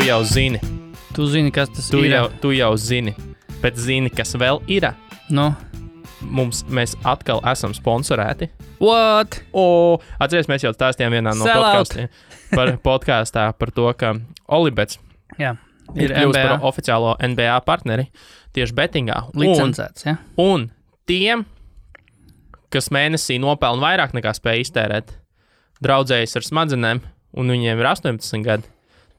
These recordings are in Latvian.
jau zini. Tu zini, kas tas ir. Tu jau zini. Bet zini, kas vēl ir? No. Mēs atkal esam sponsorēti. What? Atceries, mēs jau stāstījām vienā no podkāstā par to, ka Olibets ir kļūst par oficiālo NBA partneri tieši betingā. Licencēts, ja? Un tiem, kas mēnesī nopelna vairāk nekā spēj iztērēt, draudzējas ar smadzenēm, un viņiem ir 18 gadi,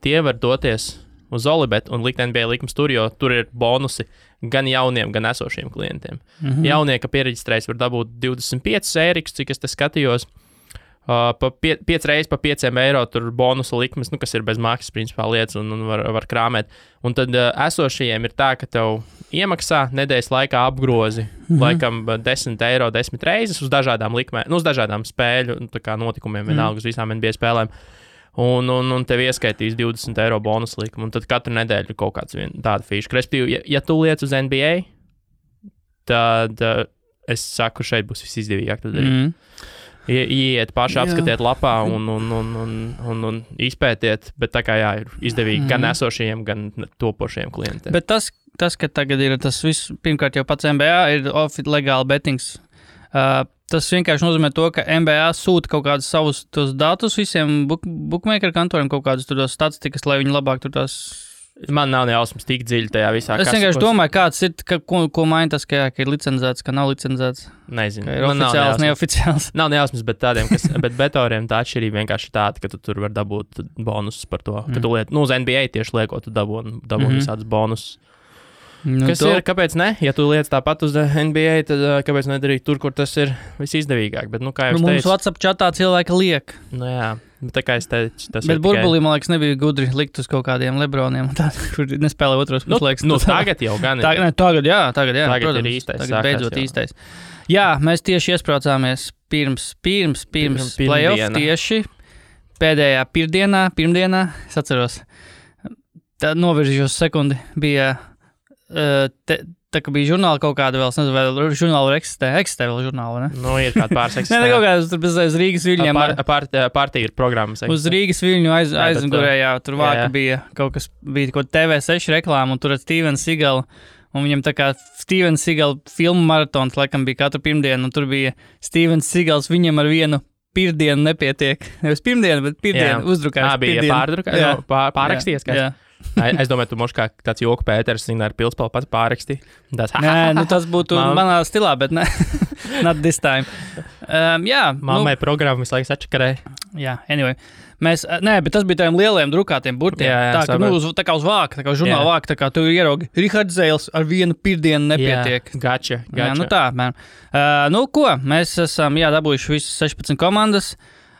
tie var doties uz Olibetu un likt NBA likums tur, jo tur ir bonusi gan jauniem, gan esošiem klientiem. Jaunie, ka piereģistrējas, var dabūt 25 eirikus, cik es te skatījos. 5 reizes pa 5 eiro tur bonusu likmes, kas ir bez maksas principā lietas un var krāmēt. Un tad esošajiem ir tā, ka tev iemaksā nedēļas laikā apgrozi laikam 10 eiro 10 reizes uz dažādām likmēm, uz dažādām spēļu notikumiem, vienalga uz visām NBA spēlēm. Un tev ieskaitīs 20 eiro bonus likumu, un tad katru nedēļu ir kaut kāds tāda fīša. Respektīvi, ja tu liec uz NBA, tad es saku, šeit būs visizdevīgāk to darīt. Iet paši, apskatiet lapā un izpētiet, bet tā kā ir izdevīgi gan esošajiem, gan topošajiem klientiem. Bet tas, ka tagad ir tas viss, pirmkārt jau pats NBA ir legāli betings. Tas vienkārši nozīmē to, ka NBA sūta kaut kādus savus tos datus visiem bookmaker kantoriem, kaut kādus tur tos statistikas, lai viņi labāk tur tās... Man nav nejausmas tik dziļi tajā visā. Es vienkārši domāju, kāds ir, ko maina tas, ka ir licencēts, ka nav licencēts. Nezinu. Ka ir oficiāls, neoficiāls. Nav nejausmas, bet tādiem, bet betoriem tā atšķirība vienkārši tāda, ka tu tur var dabūt bonusus par to. Ka tu liet, uz NBA tieši liekot, tu dabūni visādus bonusus. Kas ir, kāpēc ne? Ja tu liec tāpat uz NBA, tad kāpēc nedarīt tur, kur tas ir visizdevīgāk? Bet, kā jau es teicu... Mums WhatsApp chatā cilvēki liek. Jā, bet tā kā es teicu, tas bet ir burbulī, man liekas, nebija gudri likt uz kaut kādiem Lebroniem, kur nespēlē otros puslaiks. Tagad jau gan ir. Tagad, Tagad protams, ir īstais. Tagad beidzot īstais. Jā, mēs tieši iespraucāmies pirms playoff tieši pēdējā pirmdienā, es atceros, tā noviržījos sekundi, bija... Tā kā bija žurnāli kaut kāda vēl, es nezinu, vai žurnāli eksistē vēl žurnāli, ne? Ir kāda pāris eksistē. Kaut kādas tur bez Rīgas viļņiem. Partija ir programmas. Uz Rīgas viļņu aizmugurējā, tur vāka bija kaut kas, bija kaut TV6 reklāma, un tur ar Steven Seagal, un viņam tā kā Steven Seagal filmu maratons, laikam bija katru pirmdienu, un tur bija Steven Seagals, viņam ar vienu pirmdienu nepietiek. Nevis pirmdienu, bet pirmdienu uzdrukājis. Bija pārrakstījies, kā? Jā. Es domāju, tu moši kā tāds joku Pēters, ar pilspēlu pats pārraksti. Nē, tas būtu manā stilā, bet ne. Not this time. Mammai programma visu laiku sačakarē. Jā, anyway. Bet tas bija tādiem lieliem drukātiem burtiem. Jā, tā kā uz vāka, tā kā uz žurnāla vāka, tā kā tu ieraugi. Rihards Zēls ar vienu pirmdienu nepietiek. Gača. Jā, tā, man. Ko? Mēs esam, dabūjuši visas 16 komandas.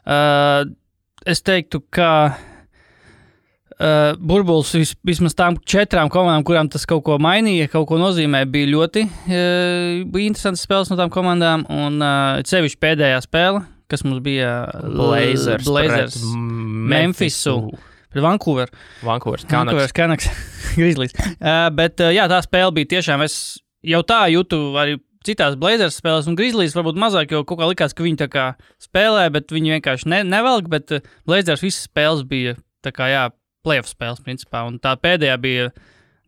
Es teiktu, ka burbulis vismaz tām 4 komandām, kurām tas kaut ko mainīja, kaut ko nozīmē, bija ļoti bija interesantas spēles no tām komandām, un sevišķi pēdējā spēle, kas mums bija Blazers Memphisu pret Vancouver Canucks Grizzlies. Bet tā spēle bija tiešām, es jau tā jūtu arī citās Blazers spēlēs un Grizzlies varbūt mazāk, jo kaut kā likās, ka viņi tā kā spēlē, bet viņi vienkārši nevelk, bet Blazers visas spēles bija tā kā playoff spēles, principā, un tā pēdējā bija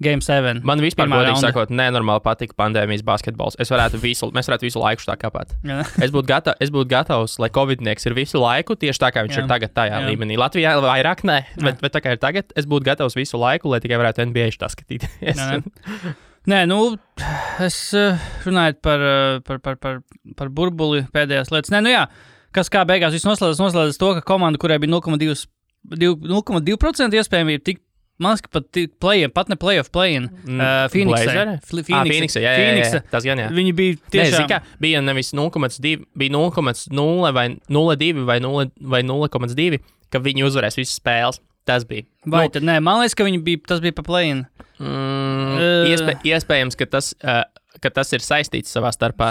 Game 7. Man vispār, godīgi sakot, nenormāli patika pandēmijas basketbols. Mēs varētu visu laiku tā kāpāt. Es būtu gatavs, lai covidnieks ir visu laiku, tieši tā kā viņš ir tagad tajā līmenī. Latvijā vairāk ne, bet tā kā ir tagad, es būtu gatavs visu laiku, lai tikai varētu NBA tā skatīties. Nē, es runāju par burbuli pēdējās lietas. Kas kā beigās viss noslēdzas to, ka komanda, kurai bija 0,2% iespējamība tikt, man liekas, pat ne playoff play-in. Phoenix, jā, tas gan jā. Viņi bija tiešām... Bija nevis 0,2, bija 0,0 vai 0,2 vai 0,2, ka viņi uzvarēs visas spēles. Tas bija. Vai tad nē, man liekas, ka tas bija pa play-in. Iespējams, ka tas ir saistīts savā starpā.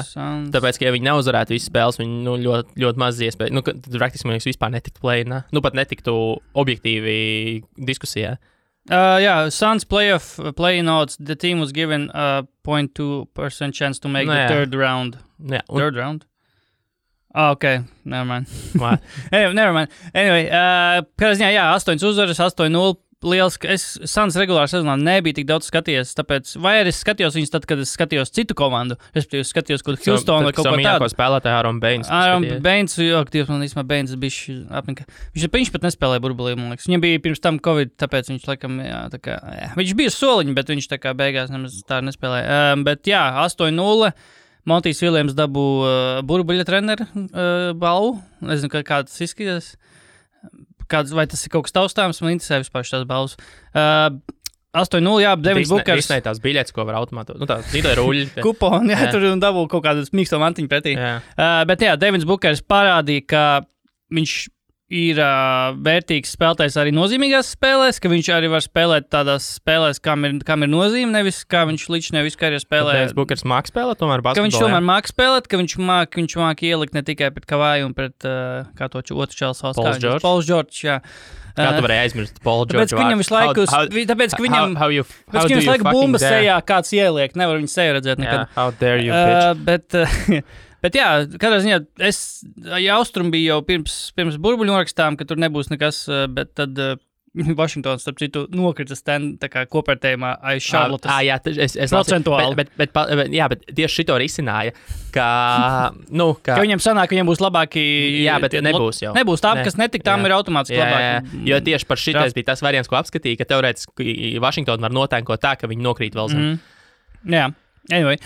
Tāpēc, ka ja viņi neuzvarētu visas spēles, viņi ļoti, ļoti maz iespēja. Tad praktiski man liekas vispār netiktu play-inā. Pat netiktu objektīvi diskusijā. Suns play-in odds, the team was given a 0.2% chance to make the third round. Third round? Okay, never mind. Never mind. Anyway, kādā ziņā, 8 uzvaras, 8-0 liels, es Suns regulārā sezonā nebija tik daudz skatījies, tāpēc, vai arī es skatījos viņus tad, kad es skatījos citu komandu, respektīvi skatījos kaut Houston vai kaut ko tādu. Spēlētāju Aaron Baines. Aaron Baines, man īstenībā Baines bišķi apnika. Viņš pat nespēlēja burbulī, man liekas. Viņam bija pirms tam Covid, tāpēc viņš laikam, viņš bija soliņi, bet viņš tā kā beigās nemaz tā nespēlēja. Bet jā, 8-0. Montijs Viljams dabū burbuļa treneru balvu. Nezinu, kā tas izskatās. Vai tas ir kaut kas taustāms? Man interesē vispār šīs balvas. 8-0, jā, Devins Bukers. Visnē tās biļetes, ko var automātu. Tā zīdai ruļļi. Kuponi, jā, tur dabū kaut kādus mīksto mantiņu pretī. Bet jā, Devins Bukers parādīja, ka viņš ir vērtīgs spēlētājs arī nozīmīgās spēlēs, ka viņš arī var spēlēt tādās spēlēs, kam ir nozīme, nevis kā viņš līdz nevis karjerā spēlē. Devins Bukers māk spēlēt, tomēr basketbolā. Ka viņš tomēr māk spēlēt, ka viņš māk ielikt ne tikai pret Kavaju un pret, kā to otru čels valsts. Pauls George, jā. Kā tu varēji aizmirst Paul George? Tāpēc, ka viņam visu laiku bumbas sejā kāds ieliek, nevar viņu seju redzēt nekad. Yeah, how dare you, bitch. Bet jā, katrā ziņā Austrum bija jau pirms burbuļu norakstām, ka tur nebūs nekas, bet tad Vašingtons, starp citu, nokrita kopērtējumā aiz Charlottes. Jā, es procentuāli. Bet tieši šito risināja, ka viņam sanāk, ka viņam būs labāki. Jā, bet nebūs jau. Nebūs tā, kas netik, tam ir automātiski labāki. Jo tieši par šitais bija tas variants, ko apskatīja, ka teorētiski Vašingtonu var notēnkot tā, ka viņi nokrīt vēl zem. Jā, anyway.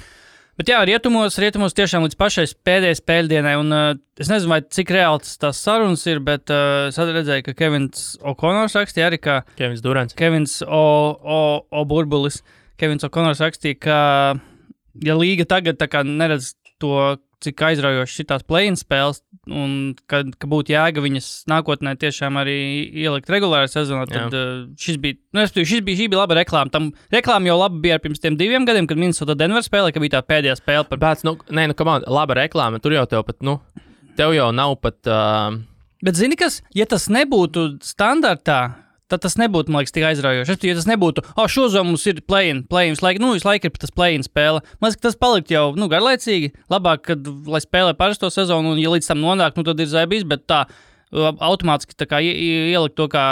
Bet jā, rietumos tiešām līdz pašai pēdējai spēļdienai, un es nezinu, vai cik reāls tās sarunas ir, bet es redzēju, ka Kevins O'Connors rakstīja arī, ka Kevins Durants. Kevins Burbulis. Kevins O'Connors rakstīja, ka ja līga tagad tā kā neredz to, cik aizraujoši šitās play-in spēles, un ka būtu jēga viņas nākotnē tiešām arī ielikt regulārā sezonā, tad šī bija laba reklāma. Tam reklāma jau labi bija pirms tiem 2 gadiem, kad Minnesota Denver spēlē, ka bija tā pēdējā spēle. Laba reklāma, tur jau tev jau nav pat... Bet zini kas, ja tas nebūtu standartā, tad tas nebūtu, man liekas, tik aizraujoši. Ja tas nebūtu, šozom mums ir play-in, visu laiku ir tas play-in spēle. Man liekas, ka tas palikt jau, garlaicīgi. Labāk, lai spēlē parasto sezonu, un ja līdz tam nonāk, tad ir zaibīs, bet tā automātiski tā kā ielikt to kā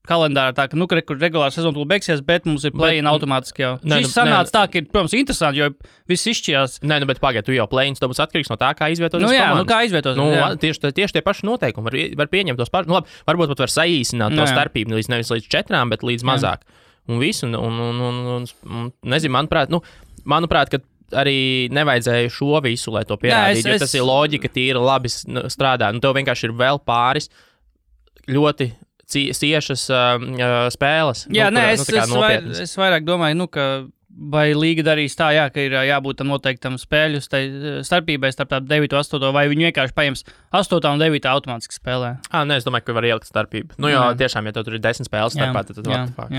kalendārā, tā ka, regulāra sezona tūlīt beigsies, bet mums ir play-in automātiski jau. Šis sanāca tā, ka ir, protams, interesanti, jo viss izšķījās. Bet pagaid, tu jau play-ins, to būs atkarīgs no tā, kā izvietoties komandas. Kā izvietoties. Tieši tie paši noteikumi var pieņemt tos pašus. Labi, varbūt pat var saīsināt to starpību nevis līdz 4, bet līdz mazāk. Un visu, un nezinu, manuprāt, ka arī nevajadzēja šo visu, lai to pierādītu, jo tas ir loģika, tīra labi strādā. Tev vienkārši ir vēl pāris ļoti ciešas spēles. Jā, es vairāk domāju, ka vai līga darīs tā, ka ir jābūt tam noteiktam spēļu starpībai starp 9 un 8, vai viņi vienkārši paņems 8 un 9 automātiski spēlē. Es domāju, ka var ielikt starpību. Jo tiešām, ja tev tur ir 10 spēles starpā, tad what the fuck.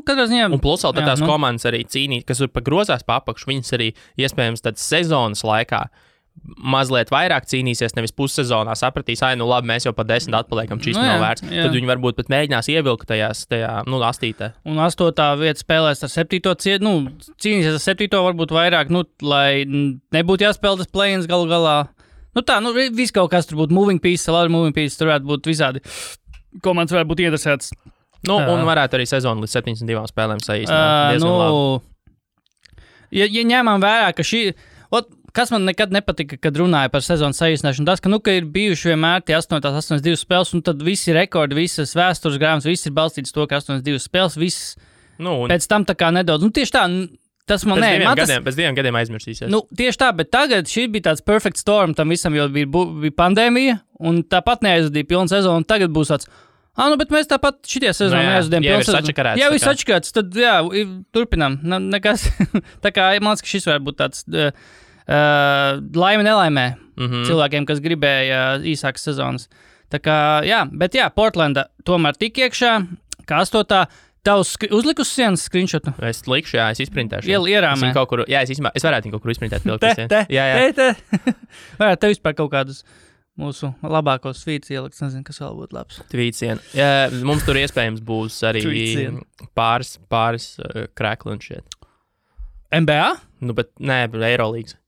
Katrā ziņā. Un plus vēl tās komandas arī cīnīt, kas ir grozās pa apakšu, viņas arī iespējams tad sezonas laikā mazliet vairāk cīnīsies, nevis pussezonā sapratīs, labi, mēs jau pa 10 atpaliekam, šis nav vērts. Tad viņi varbūt pat mēģinās ievilkt tajā astītē. Un 8. vieta spēlēs ar 7. Cīnīsies ar 7. varbūt vairāk, lai nebūtu jāspēlē tas play-ins galu galā. Viss kaut kas tur būtu moving piece, tur varētu būt visādi. Komandas varētu būt interesētas. Un varētu arī sezonu līdz 72 spēlēm saīsināt. Diezgan labi. Ja ņēmām vērā, ka kas man nekad nepatika, kad runāja par sezonas saīsināšanu, tas, ka ir bijuši vienmēr tie 82 spēles, un tad visi rekordi, visas vēstures grāmatas, viss ir balstīts to, ka 82 spēles, viss pēc tam tā kā nedaudz. Tieši tā, tas man pēc 2 gadiem aizmirsīsies. Tieši tā, bet tagad šī bija tāds perfect storm, tam visam jau bija pandēmija, un tāpat neaizvadīja pilnu sezonu, un tagad būs tāds, bet mēs tāpat šitie sezonu neaizvadījām pilnu sezonu. Jā, viss atšķirāts, tad turpinām. Nekas. Tā kā man liekas, ka šis varētu būt tāds... laime nelaimē cilvēkiem, kas gribēja īsākas sezonas. Tā kā, bet Portlanda tomēr tik iekšā, kā 8. Tavs uzlikus sienas screenshotu? Es likšu, es izprintēšu. Ierāmē. Es varētu viņu kaut kur izprintēt. Te. Varētu tev vispār kaut kādus mūsu labākos tvīts ielikt, nezinu, kas vēl būtu labs. Tvītsiena. Mums tur iespējams būs arī pāris krēkli un šiet. NBA? Bet nē, Eirolīgas.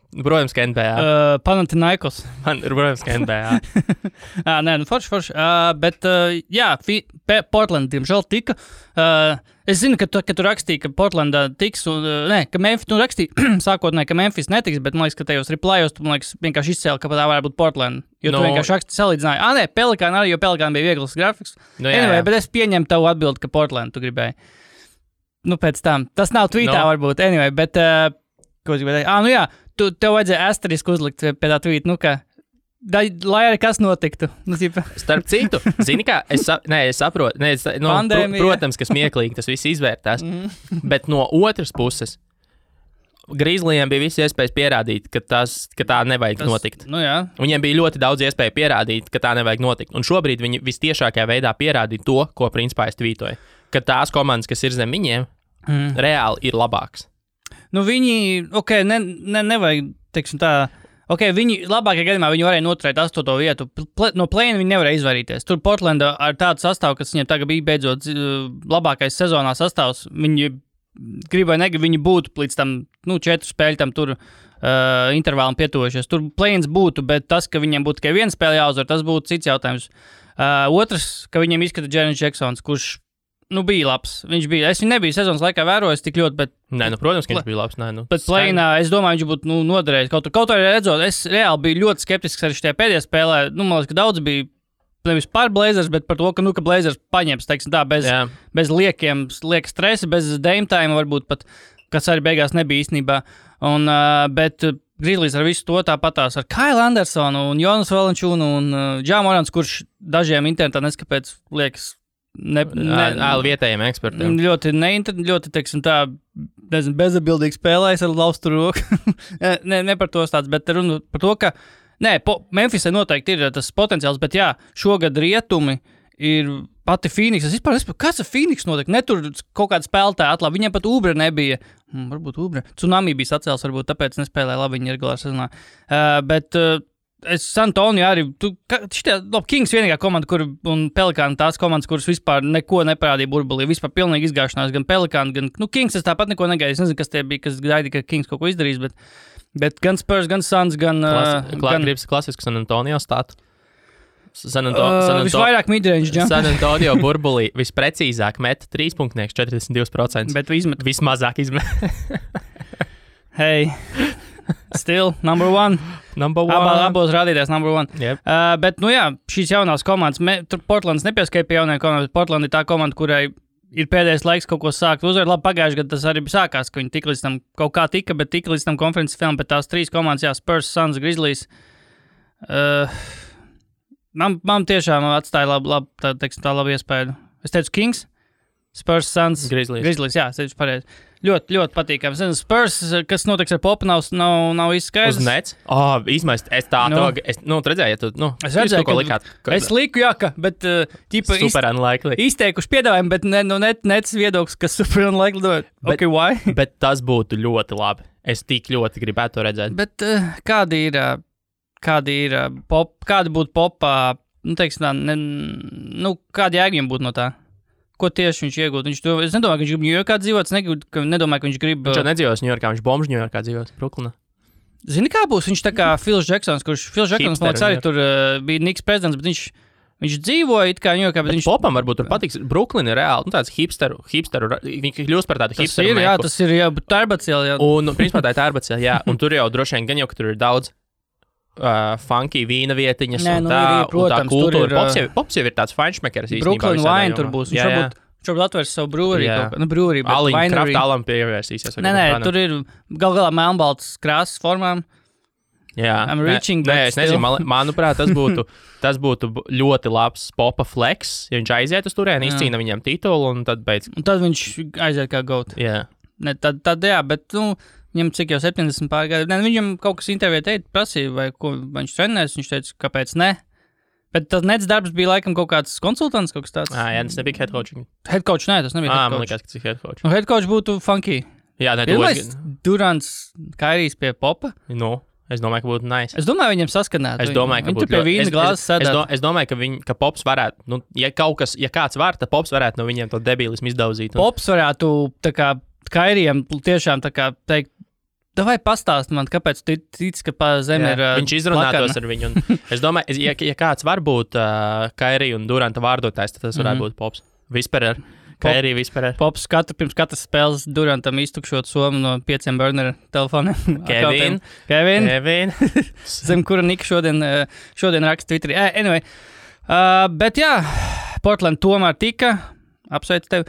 Protams, ka NBA. Panathinaikos. Protams, ka NBA. Nē, nu forši. Bet, jā, Portland, diemžēl, tika. Es zinu, ka tu rakstīji, ka Portlandā tiks, ka Memphis, tu rakstīji sākotnēji, ka Memphis netiks, bet man liekas, ka tajos replayos tu, man liekas, vienkārši izcēli, ka tā varētu būt Portland. Jo tu vienkārši rakstīji salīdzināji. Nē, Pelikāna arī, jo Pelikāna bija viegls grafiks. Anyway, bet es pieņemu tavu atbildi, ka Portland tu gribēji. Nu, pēc tam. Tas nav tweetā varbūt. Anyway, bet, ko es gribēju teikt? Nu jā, tev vajadzēja asterisku uzlikt pie tā tweet, nu kā. Lai arī kas notiktu. Nu, starp citu, zini kā, es saprotu, protams, ka smieklīgi tas viss izvērtās, bet no otras puses, Grizzlyiem bija visi iespējas pierādīt, ka tā nevajag notikt. Nu jā. Viņiem bija ļoti daudz iespēju pierādīt, ka tā nevajag notikt. Un šobrīd viņi vistiešākajā veidā pierādīja to, ko principā es tvītoju. Ka tās komandas, kas ir zem viņiem, reāli ir labāks. Nu viņi, nevajag, teiksim tā, viņi labākajā gadījumā viņi varēja noturēt 8. vietu. No play-in viņi nevarēja izvairīties. Tur Portlanda ar tādu sastāvu, kas viņiem tagad bija beidzot labākais sezonā sastāvs, viņi grib vai negrib, viņi būtu līdz tam, 4 spēļu tam tur intervālam pietuvojušies. Tur play-ins būtu, bet tas, ka viņiem būtu tikai viena spēle jāuzvar, tas būtu cits jautājums. Otrs, ka viņiem izskata Jaren Jacksons, kurš bija labs. Viņš bija. Es viņu nebiju sezonas laikā vērojis tik ļoti, bet... Nē, protams, ka viņš bija labs. Bet play-inā, es domāju, viņš būtu noderējis. Kaut arī redzot, es reāli biju ļoti skeptisks arī šajā pēdējā spēlē. Man liekas, ka daudz bija nevis par Blazers, bet par to, ka Blazers paņems, teiksim tā, bez lieka stresa, bez dame time varbūt pat, kas arī beigās nebija īstenībā. Bet Grizzlies ar visu to tāpatās ar Kyle Andersonu un Jonas Valančūnu un Ja Morants, kurš dažiem internetā neskapēc liekas vietējiem ekspertiem. Ļoti, teiksim tā, bezatbildīgi spēlējas ar laustu roku. ne par to stāsts, bet runa par to, ka Memphisai noteikti ir tas potenciāls, bet jā, šogad rietumi ir pati Phoenix. Es vispār nesaprotu, kas ar Phoenix notiek. Netur kaut kāda spēlētāja atlabi. Viņiem pat Ubre nebija. Varbūt Ubre. Tsunami bija sacēls, varbūt tāpēc nespēlēja labi viņa regulāri sezonā. Bet es San Antonio arī, Kings vienīgā komanda, un Pelikāna tās komandas, kuras vispār neko neparādīja burbulī, vispār pilnīgi izgāšanās, gan Pelikāna, gan, Kings es tāpat neko negaidīju, es nezinu, kas tie bija, kas gaidīja, ka Kings kaut ko izdarīs, bet gan Spurs, gan Suns, gan... Gribas klasisku San Antonio stātu. Visvairāk midrange jump. San Antonio burbulī visprecīzāk met 3.42%. Bet vismazāk izmet. Hey... Still, number one. Abos rādītājs number one. Yep. Bet, šīs jaunās komandas, tur Portlands nepieskaita pie jaunajām komandām, bet Portland ir tā komanda, kurai ir pēdējais laiks kaut ko sākt uzvar. Labi, pagājuši gadu tas arī sākās, ka viņi tik līdz tam kaut kā bet tik līdz tam konferences filmam, bet tās 3 komandas, Spurs, Suns, Grizzlies. Man tiešām atstāja labu iespēju. Es teicu Kings, Spurs, Suns, Grizzlies, jā, es teicu pareizi. Ļoti, ļoti patīkams. Spurs, kas notiks ar Popu, nav īsti skaidrs. Uz nets? Izmaist, es tā redzēju, ja tu, es redzēju, ko likāt. Es liku, bet, super unlikely. Izteikuši piedāvājumu, bet nets viedoklis, kas super unlikely. Why? Bet tas būtu ļoti labi. Es tik ļoti gribētu to redzēt. Bet kādi būtu Popā, teiksim tā, kādi jēga viņam būtu no tā? Ko tieši viņš iegūtu? Es nedomāju, ka viņš grib Ņujorkā dzīvot. Es nedomāju, ka viņš grib... Viņš jau nedzīvos Ņujorkā, viņš bombs Ņujorkā dzīvos, Brooklynā. Zini, kā būs? Viņš tā kā Phils Jacksons, kurš Phils Jacksons, man liekas, arī tur bija Knicks prezidents, bet viņš dzīvoja it kā Ņujorkā, bet viņš... Popam varbūt tur patiks. Brooklyn ir reāli, tāds hipsteru, viņi kļūst par tādu hipsteru meku. Tas ir, jā, Tārbacēl, jā. Un, principā tā ir Tārbacēl, jā. Un tur jau droši vien gan jau, ka tur ir daudz funky vīna vietiņas un tā kultūra. Pops jau ir tāds feinšmekers īstenībā. Brooklyn Wine tur būs. Viņš varbūt atvērs savu brūrī. Aliņu kraftālam pievērsīsies. Nē, tur ir galā melnbalts krāsas formām. Jā. Es nezinu, manuprāt, tas būtu ļoti labs Popa flex, ja viņš aiziet uz turieni, izcīna viņam titulu un tad beidz. Un tad viņš aiziet kā goat. Jā. Tad jā, bet, viņam cik jau 70 pār gadu. Viņam kaut kas intervijā prasīja, vai ko viņš trenēs, viņš teica, kāpēc ne. Bet tas nets darbs bija laikam kaut kāds konsultants, kaut kas tāds. Jā, tas nebija head coaching. Head coach, nē, tas nebija head coach. Man liekas, ka tas ir head coach. Head coach būtu funky. Jā, Durants, Kairijs pie Popa. Es domāju, ka būtu nice. Es domāju, viņam saskanētu. Es domāju, ka būtu pie vīna glāzes sēdēt. Es domāju, ka Pops varētu, ja kāds var, tad Pops varētu no viņiem to debilismu izdauzīt. Pops varētu, tā kā, Kairijam tiešām, tā kā, teikt, Davai pastāst man, kāpēc tu tici, ka pa zemi ir viņš izrunātos ar viņu. Un es domāju, ja kāds var būt Kairi un Duranta vārdotājs, tad tas varētu būt Pops. Whisperer. Kairi Whisperer. Pops pirms katras spēles Durantam iztukšot somu no 5 burneru telefoniem. Kevin. Zem kura Nika šodien raksta Twitterī. Anyway, bet jā, Portland tomēr tika. Apsveicu tevi.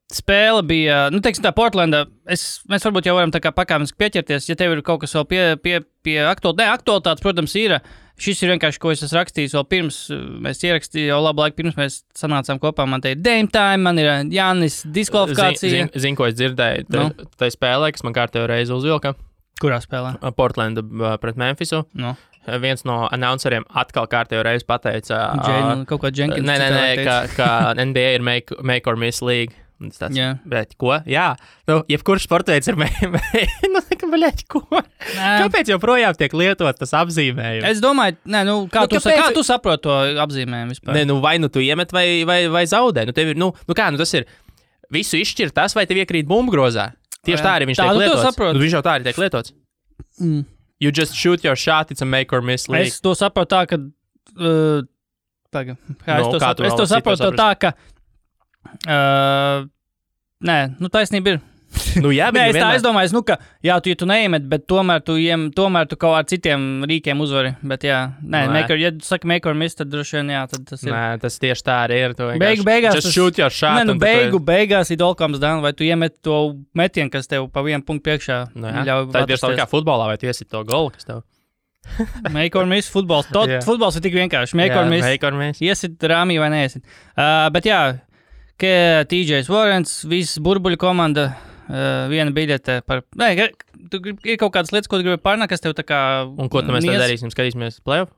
Spēle bija, teiksim tā, Portlandā, mēs varbūt jau varam tā kā pakāpeniski pieķerties, ja tev ir kaut kas vēl pie aktualitātes, protams, ir. Šis ir vienkārši, ko es esmu rakstījis vēl pirms, mēs ierakstījām jau labu laiku pirms mēs sanācām kopā, man te ir Dame Time, man ir Jānis diskvalifikācija. Zinu, ko es dzirdēju, tai spēlē, kas man kārtējo reizi uzvilka. Kurā spēlē? Portlanda pret Memphisu. No. Viens no announceriem atkal kārtējo reizi pateica. Kaut kā Jenkins. Ka NBA ir make or miss league. Tāds, bet ko? Jā, jebkurš sportveids ir ko? Kāpēc joprojām tiek lietot tas apzīmējums? Es domāju, kā tu saproti to apzīmējumu vispār? Vai tu iemet vai zaudē? Tev ir, tas ir visu izšķirt tas, vai tev iekrīt bumbgrozā. Tieši tā arī viņš tiek lietots. Viņš jau tā arī tiek lietots. You just shoot your shot, it's a make or miss league. Es to saprotu tā, ka... es to saprotu tā, ka... taisnība ir. Es domāju, ka, ja tu neiemet, bet tomēr tu kaut ar citiem rīkiem uzvari. Bet, ja tu saki make or miss, tad droši vien, tad tas ir. Nē, tas tieši tā arī ir. Beigās just shoot your shot. Beigās ir all comes down, vai tu iemet to metienu, kas tev pa vienu punktu priekšā ļauj. Tā ir tieši tā kā futbolā, vai tu iesit to golu, kas tev. Make or miss, futbols. Futbols ir tik vienkārši. Make or miss. Iesit rāmī vai neiesit. Bet jā, TJs Warrens, visas burbuļu komanda, viena biļete par... ir kaut kādas lietas, ko tu gribi pārnāk, kas tev tā kā... Un ko mēs tad darīsim? Skatīsimies playoff?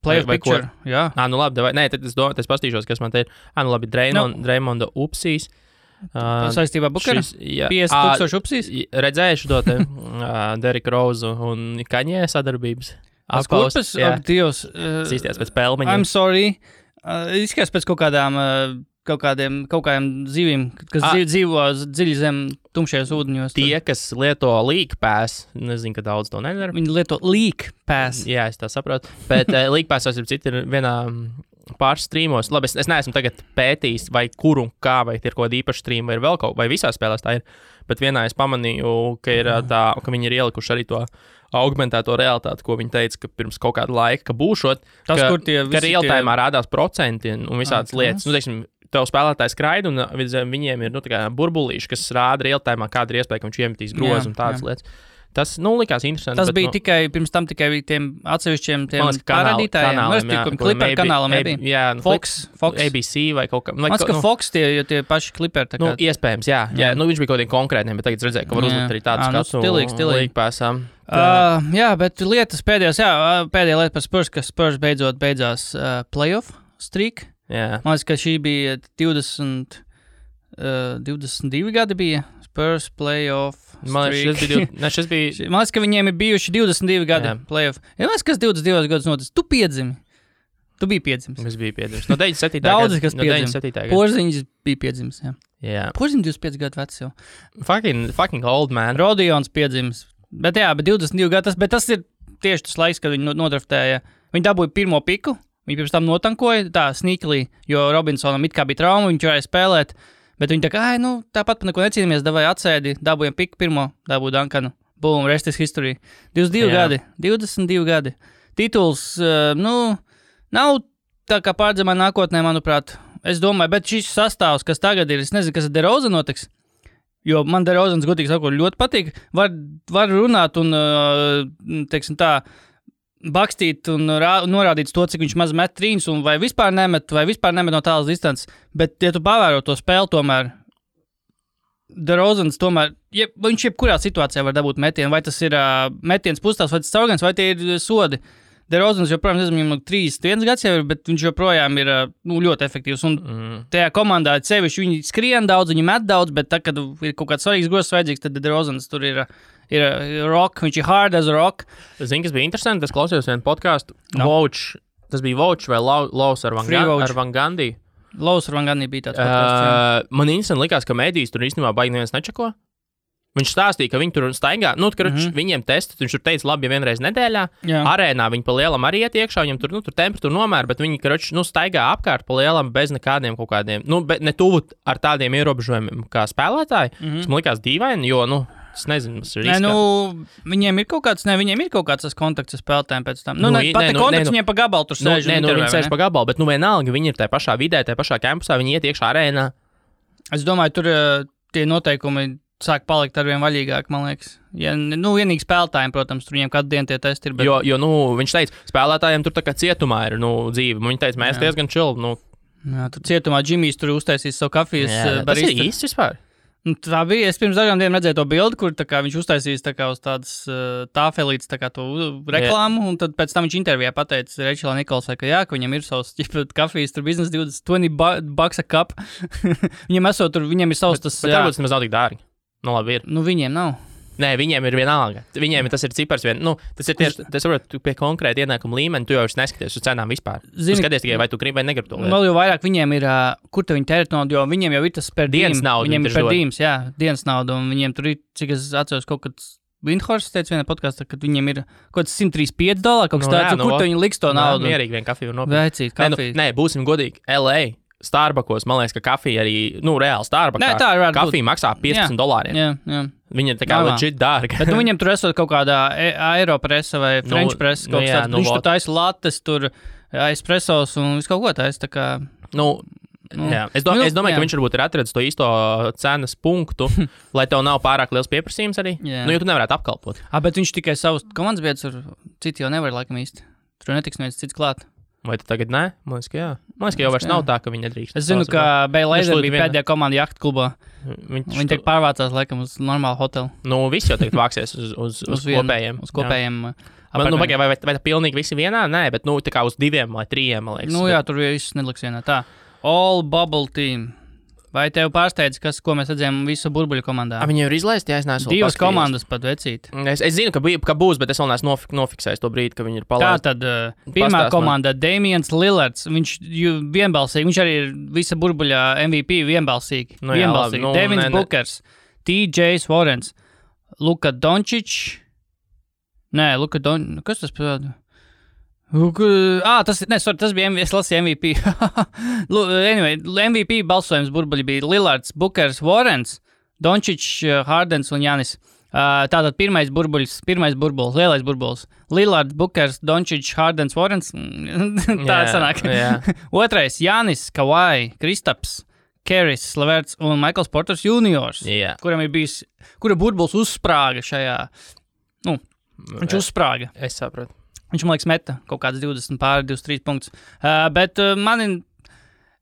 Playoff picture, jā. Labi, nē, tad es pastīšos, kas man te ir. Labi, Draymonda upsīs. Saistībā Bukaru? 50,000 upsīs? Redzējuši to te Derrick Rose un Kaņē sadarbības. Kurpes? Dievs. Sīsties pēc pelmeņiem. I'm sorry. Izskatās pēc kaut kādiem zivīm, kas dzīvo dziļi zem tumšajos ūdeņos. Tie, kas lieto League Pass, nezinu, ka daudz to nedara. Viņi lieto League Pass. Jā, es tā saprotu. Bet League Pass ir vienā pāris streamos. Labi, es neesmu tagad pētījis, vai kur un kā, vai ir kaut kāda īpaša streama, vai ir vēl kaut, vai visās spēlēs tā ir. Bet vienā es pamanīju, ka ir ka viņi ir ielikuši arī to augmentēto realitāti, ko viņi teica, ka pirms kaut kāda laika, ka būšot, tas, ka real-time rādās procenti un visādas lietas. Teiksim, tev spēlētājs skraida, un viņiem ir burbulīši, kas rāda real-time, kāda ir iespēja, ka viņš iemetīs grozu un tādas lietas. Tas, likās interesanti. Tas bija pirms tam tikai tiem atsevišķiem parādītājiem. Clipper kanālam nebija. Fox. ABC vai kaut kā. Man liekas, ka Fox tie paši Clipper. Iespējams, jā. Viņš bija kaut kādiem konkrētiem, bet tagad redzēju, ka var uzlikt arī tādu skatu. Stilīgi. Jā, bet lietas pēdējā lieta par Spurs, ka Spurs beidzās playoff streak. Jā. Man liekas, ka šī bija 22 gadi bija Spurs playoff streak. Man liekas, ka viņiem ir bijuši 22 gadi playoff. Man liekas, kas 22 gadus notic. Tu piedzimi. Tu biji piedzimis. Es biju piedzimis. No 97. gada. Daudzi, kas piedzima. Porziņš bija piedzimis, jā. Jā. Porziņš 25 gadu vecs jau. Fucking old man. Rodions piedzimis. Bet 22 gadu, bet tas ir tieši tas laiks, kad viņi nodraftēja. Viņi dabūja pirmo piku, viņi pirms tam notankoja tā sneakily, jo Robinsonam it kā bija trauma, viņš varēja spēlēt, bet viņi tā kā, tāpat par neko necīnāmies, davāja atsēdi, dabūjam piku pirmo, dabūja Duncanu, boom, rest is history. 22 gadi. Tituls, nav tā kā pārdzemā nākotnē, manuprāt. Es domāju, bet šis sastāvs, kas tagad ir, es nezinu, kas ar DeRozan notiks. Jo man DeRozans, godīgi sakot, ļoti patīk. Var runāt un, teiksim tā, bakstīt un norādīt to, cik viņš maz met trīņus, un vai vispār nemet no tālas distances. Bet, ja tu pavēro to spēli, tomēr DeRozans tomēr, viņš jebkurā situācijā var dabūt metienu, vai tas ir metiens pustāvs, vai tas caurgans, vai tie ir sodi. DeRozans joprojām, nezinu, 31 gads jau ir, bet viņš joprojām ir ļoti efektīvs. Un tajā komandā sevišķi viņi skrien daudz, viņi met daudz, bet tad, kad ir kaut kāds svarīgs grozs vajadzīgs, tad DeRozans tur ir rock, viņš ir hard as rock. Zini, kas bija interesanti, es klausījos vienu podcastu, tas bija Vouch vai Laus ar Van Gandhi. Laus ar Van Gandhi bija tāds podcasts. Man interesanti likās, ka medijas tur īstenībā baigi neviens nečako. Viņš stāstīja, ka viņi tur staigā, viņiem testi, viņš tur teica, labi, ja vienreiz nedēļā, arēnā viņi pa lielam arī iet iekšā, viņam tur temperatūra nomēra, bet viņi, staigā apkārt pa lielam bez nekādiem kaut kādiem, ne tuvu ar tādiem ierobežojumiem kā spēlētāji. Tas man likās dīvaini, jo, es nezinu, tas ir riskā. Viņiem ir kaut kāds tas kontakts ar spēlētājiem pēc tam. Kontakts viņiem pa gabalu tur sēž. Viņi sēž pa gabalu, bet vienalga, viņi ir tajā pašā vidē, tajā pašā kampusā, viņi iet iekšā arēnā. Es domāju, tur tie noteikumi sāk palikt arvien vaļīgāk, man liekas. Ja, vienīgi spēlētājiem, protams, tur viņiem katru dienu tie testi ir. Bet... Jo viņš teica, spēlētājiem tur tā kā cietumā ir dzīve. Viņi teica, mēs diezgan chill. Jā, tur cietumā Džimijs tur uztaisīs savu kafijas barista. Tas ir īsts vispār. Tā bija. Es pirms dažām dienām redzēju to bildi, kur viņš uztaisīs uz tādas tāfelītes to reklāmu, un tad pēc tam viņš intervijā pateica Rečelā Nikolsai, ka viņam ir savs kafijas, tur biznes $20 a cup. viņiem ir savs tas... Bet varbūt tas nav tik dārgi. Labi ir. Viņiem nav. Nē, viņiem ir vienalga. Viņiem tas ir cipars tas ir tieši, tas varbūt pie konkrēta ienākuma līmeņa, tu jau neskaties uz cenām vispār. Tu skaties tikai, vai tu gribi vai negribi to lietu. Vēl jau vairāk viņiem ir, kur te viņi tērēt naudu, jo viņiem jau ir tas per dienas nauda. Viņiem ir per dīms, dienas nauda, un viņiem tur ir, cik es atceros, kaut kāds Windhorst teica vienā podkastā, ka viņiem ir kaut kāds $135, kaut kas tāds, kur te viņi liks to naudu. Mierīgi vien kafiju var nopirkt. Vecīt, kafiju. Nē, būsim godīgi, LA. Starbuckos, man liekas, ka kafija arī, reāli Starbucksā. Tā ir kafija maksā $15. Jā. Viņa ir tā kā legit dārga. Bet viņam tur esot kaut kādā Aeropressa vai French press, kaut kas tāds. Viņš tur taisa lattes, tur espressos un visu kaut ko taisa, tā kā... Jā. Es domāju, ka viņš varbūt ir atradis to īsto cenas punktu, lai tev nav pārāk liels pieprasījums arī. Jo tu nevarētu apkalpot. Bet viņš tikai savus komandas biedrus, citi jau nevar laikam īsti. Tur netiks neviens cits klāt. Vai tu tagad nē? Man liekas, ka jā. Man liekas, ka jau vairs nav tā, ka viņi nedrīkst. Es zinu, ka Beilaser bija pēdējā komanda jahtu klubā. Viņi tagad pārvācās, laikam, uz normālu hotelu. Visi jau tagad vāksies uz kopējiem. Uz kopējiem. Vai tā pilnīgi visi vienā? Nē, bet tā kā uz 2 vai 3, man liekas. Jā, tur viss neliks vienā. Tā. All Bubble Team. Vai tev pārsteidz, ko mēs redzējām visu burbuļu komandā? Viņi jau ir izlaisti, ja es neesmu. 2 komandas pat vecīt. Es zinu, ka būs, bet es vēl neesmu nofiksējis to brīdi, ka viņi ir palaisti. Tātad pirmā komanda Damians Lillards, viņš vienbalsīgi, viņš arī ir visa burbuļā MVP vienbalsīgi. Devins Bookers, TJ Warrens, Luka Doncic. Kas tas pēc? Tas bija es lasīju MVP. Anyway, MVP balsojums burbuļi bija Lillards, Bookers, Warrens, Doncic, Hardens un Janis. Tātad pirmais burbulis, lielais burbulis. Lillards, Bookers, Doncic, Hardens, Warrens. Tā sanāk. Otrais Janis, Kawhi, Kristaps, Keris, Leverts un Michaels Porters Juniors, kuram ir bijis, kura burbulis uzsprāga šajā, viņš uzsprāga. Es saprotu. Viņš, man liekas, meta kaut kāds 23 punktus. Bet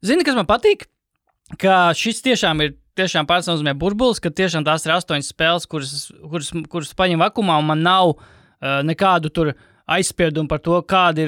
zini, kas man patīk? Ka šis tiešām pārstāvnozīmē burbulis, ka tiešām tās ir 8 spēles, kuras paņem vakumā, un man nav nekādu tur aizspiedumu par to, kāds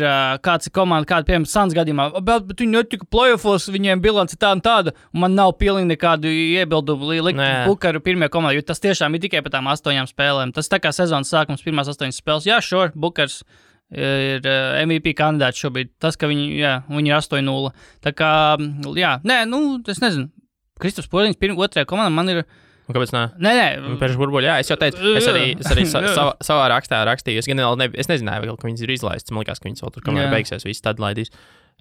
ir komanda, kāda, piemēram, Suns gadījumā. Bet viņi netika playoffos, viņiem bilance tāda un tāda, un man nav pilnīgi nekādu iebildumu likt Bookeru pirmajā komandā, jo tas tiešām ir tikai par tām 8 spēlēm. Tas tā kā sezonas sākums, pirmās 8 spēles. Jā, sure, Bookers ir MVP kandidāts šobrīd. Tas, ka viņi ir 8-0. Tā kā, es nezinu. Kristaps Porziņš otrajā komandā man ir... Kāpēc nē? Nē. Pēc burbuļa, jā. Es jau teicu, es arī savā rakstā rakstīju. Es nezināju, ka viņas ir izlaistas. Man liekas, ka viņas vēl tur, kamēr beigsies, viss tad laidīs.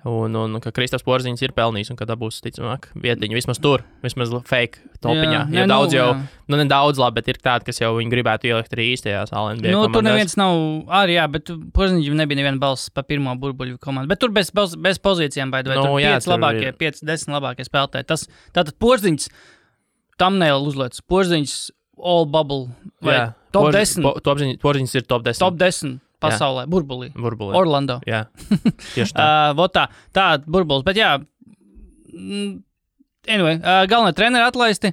Un ka Kristaps Porziņš ir pelnījis un ka dabūs, ticamāk, vietiņu. Vismaz tur, vismaz fake topiņā. Jo daudz jau, nedaudz labi, bet ir tādi, kas jau viņu gribētu ielikt arī īstajās NBA komandās. Tur neviens nav, bet Porziņš nebija neviena balss pa pirmo burbuļu komandu. Bet tur bez pozīcijām, vai tur 5-10 labākie spēlētāji. Tātad Porziņš thumbnail uzliec. Porziņš all bubble. Vai top 10. Porziņš ir top 10. Top 10. Pasaulē, burbulī. Orlando. Jā, tieši tā. Tā burbulis, bet anyway, galvenā treneri atlaisti.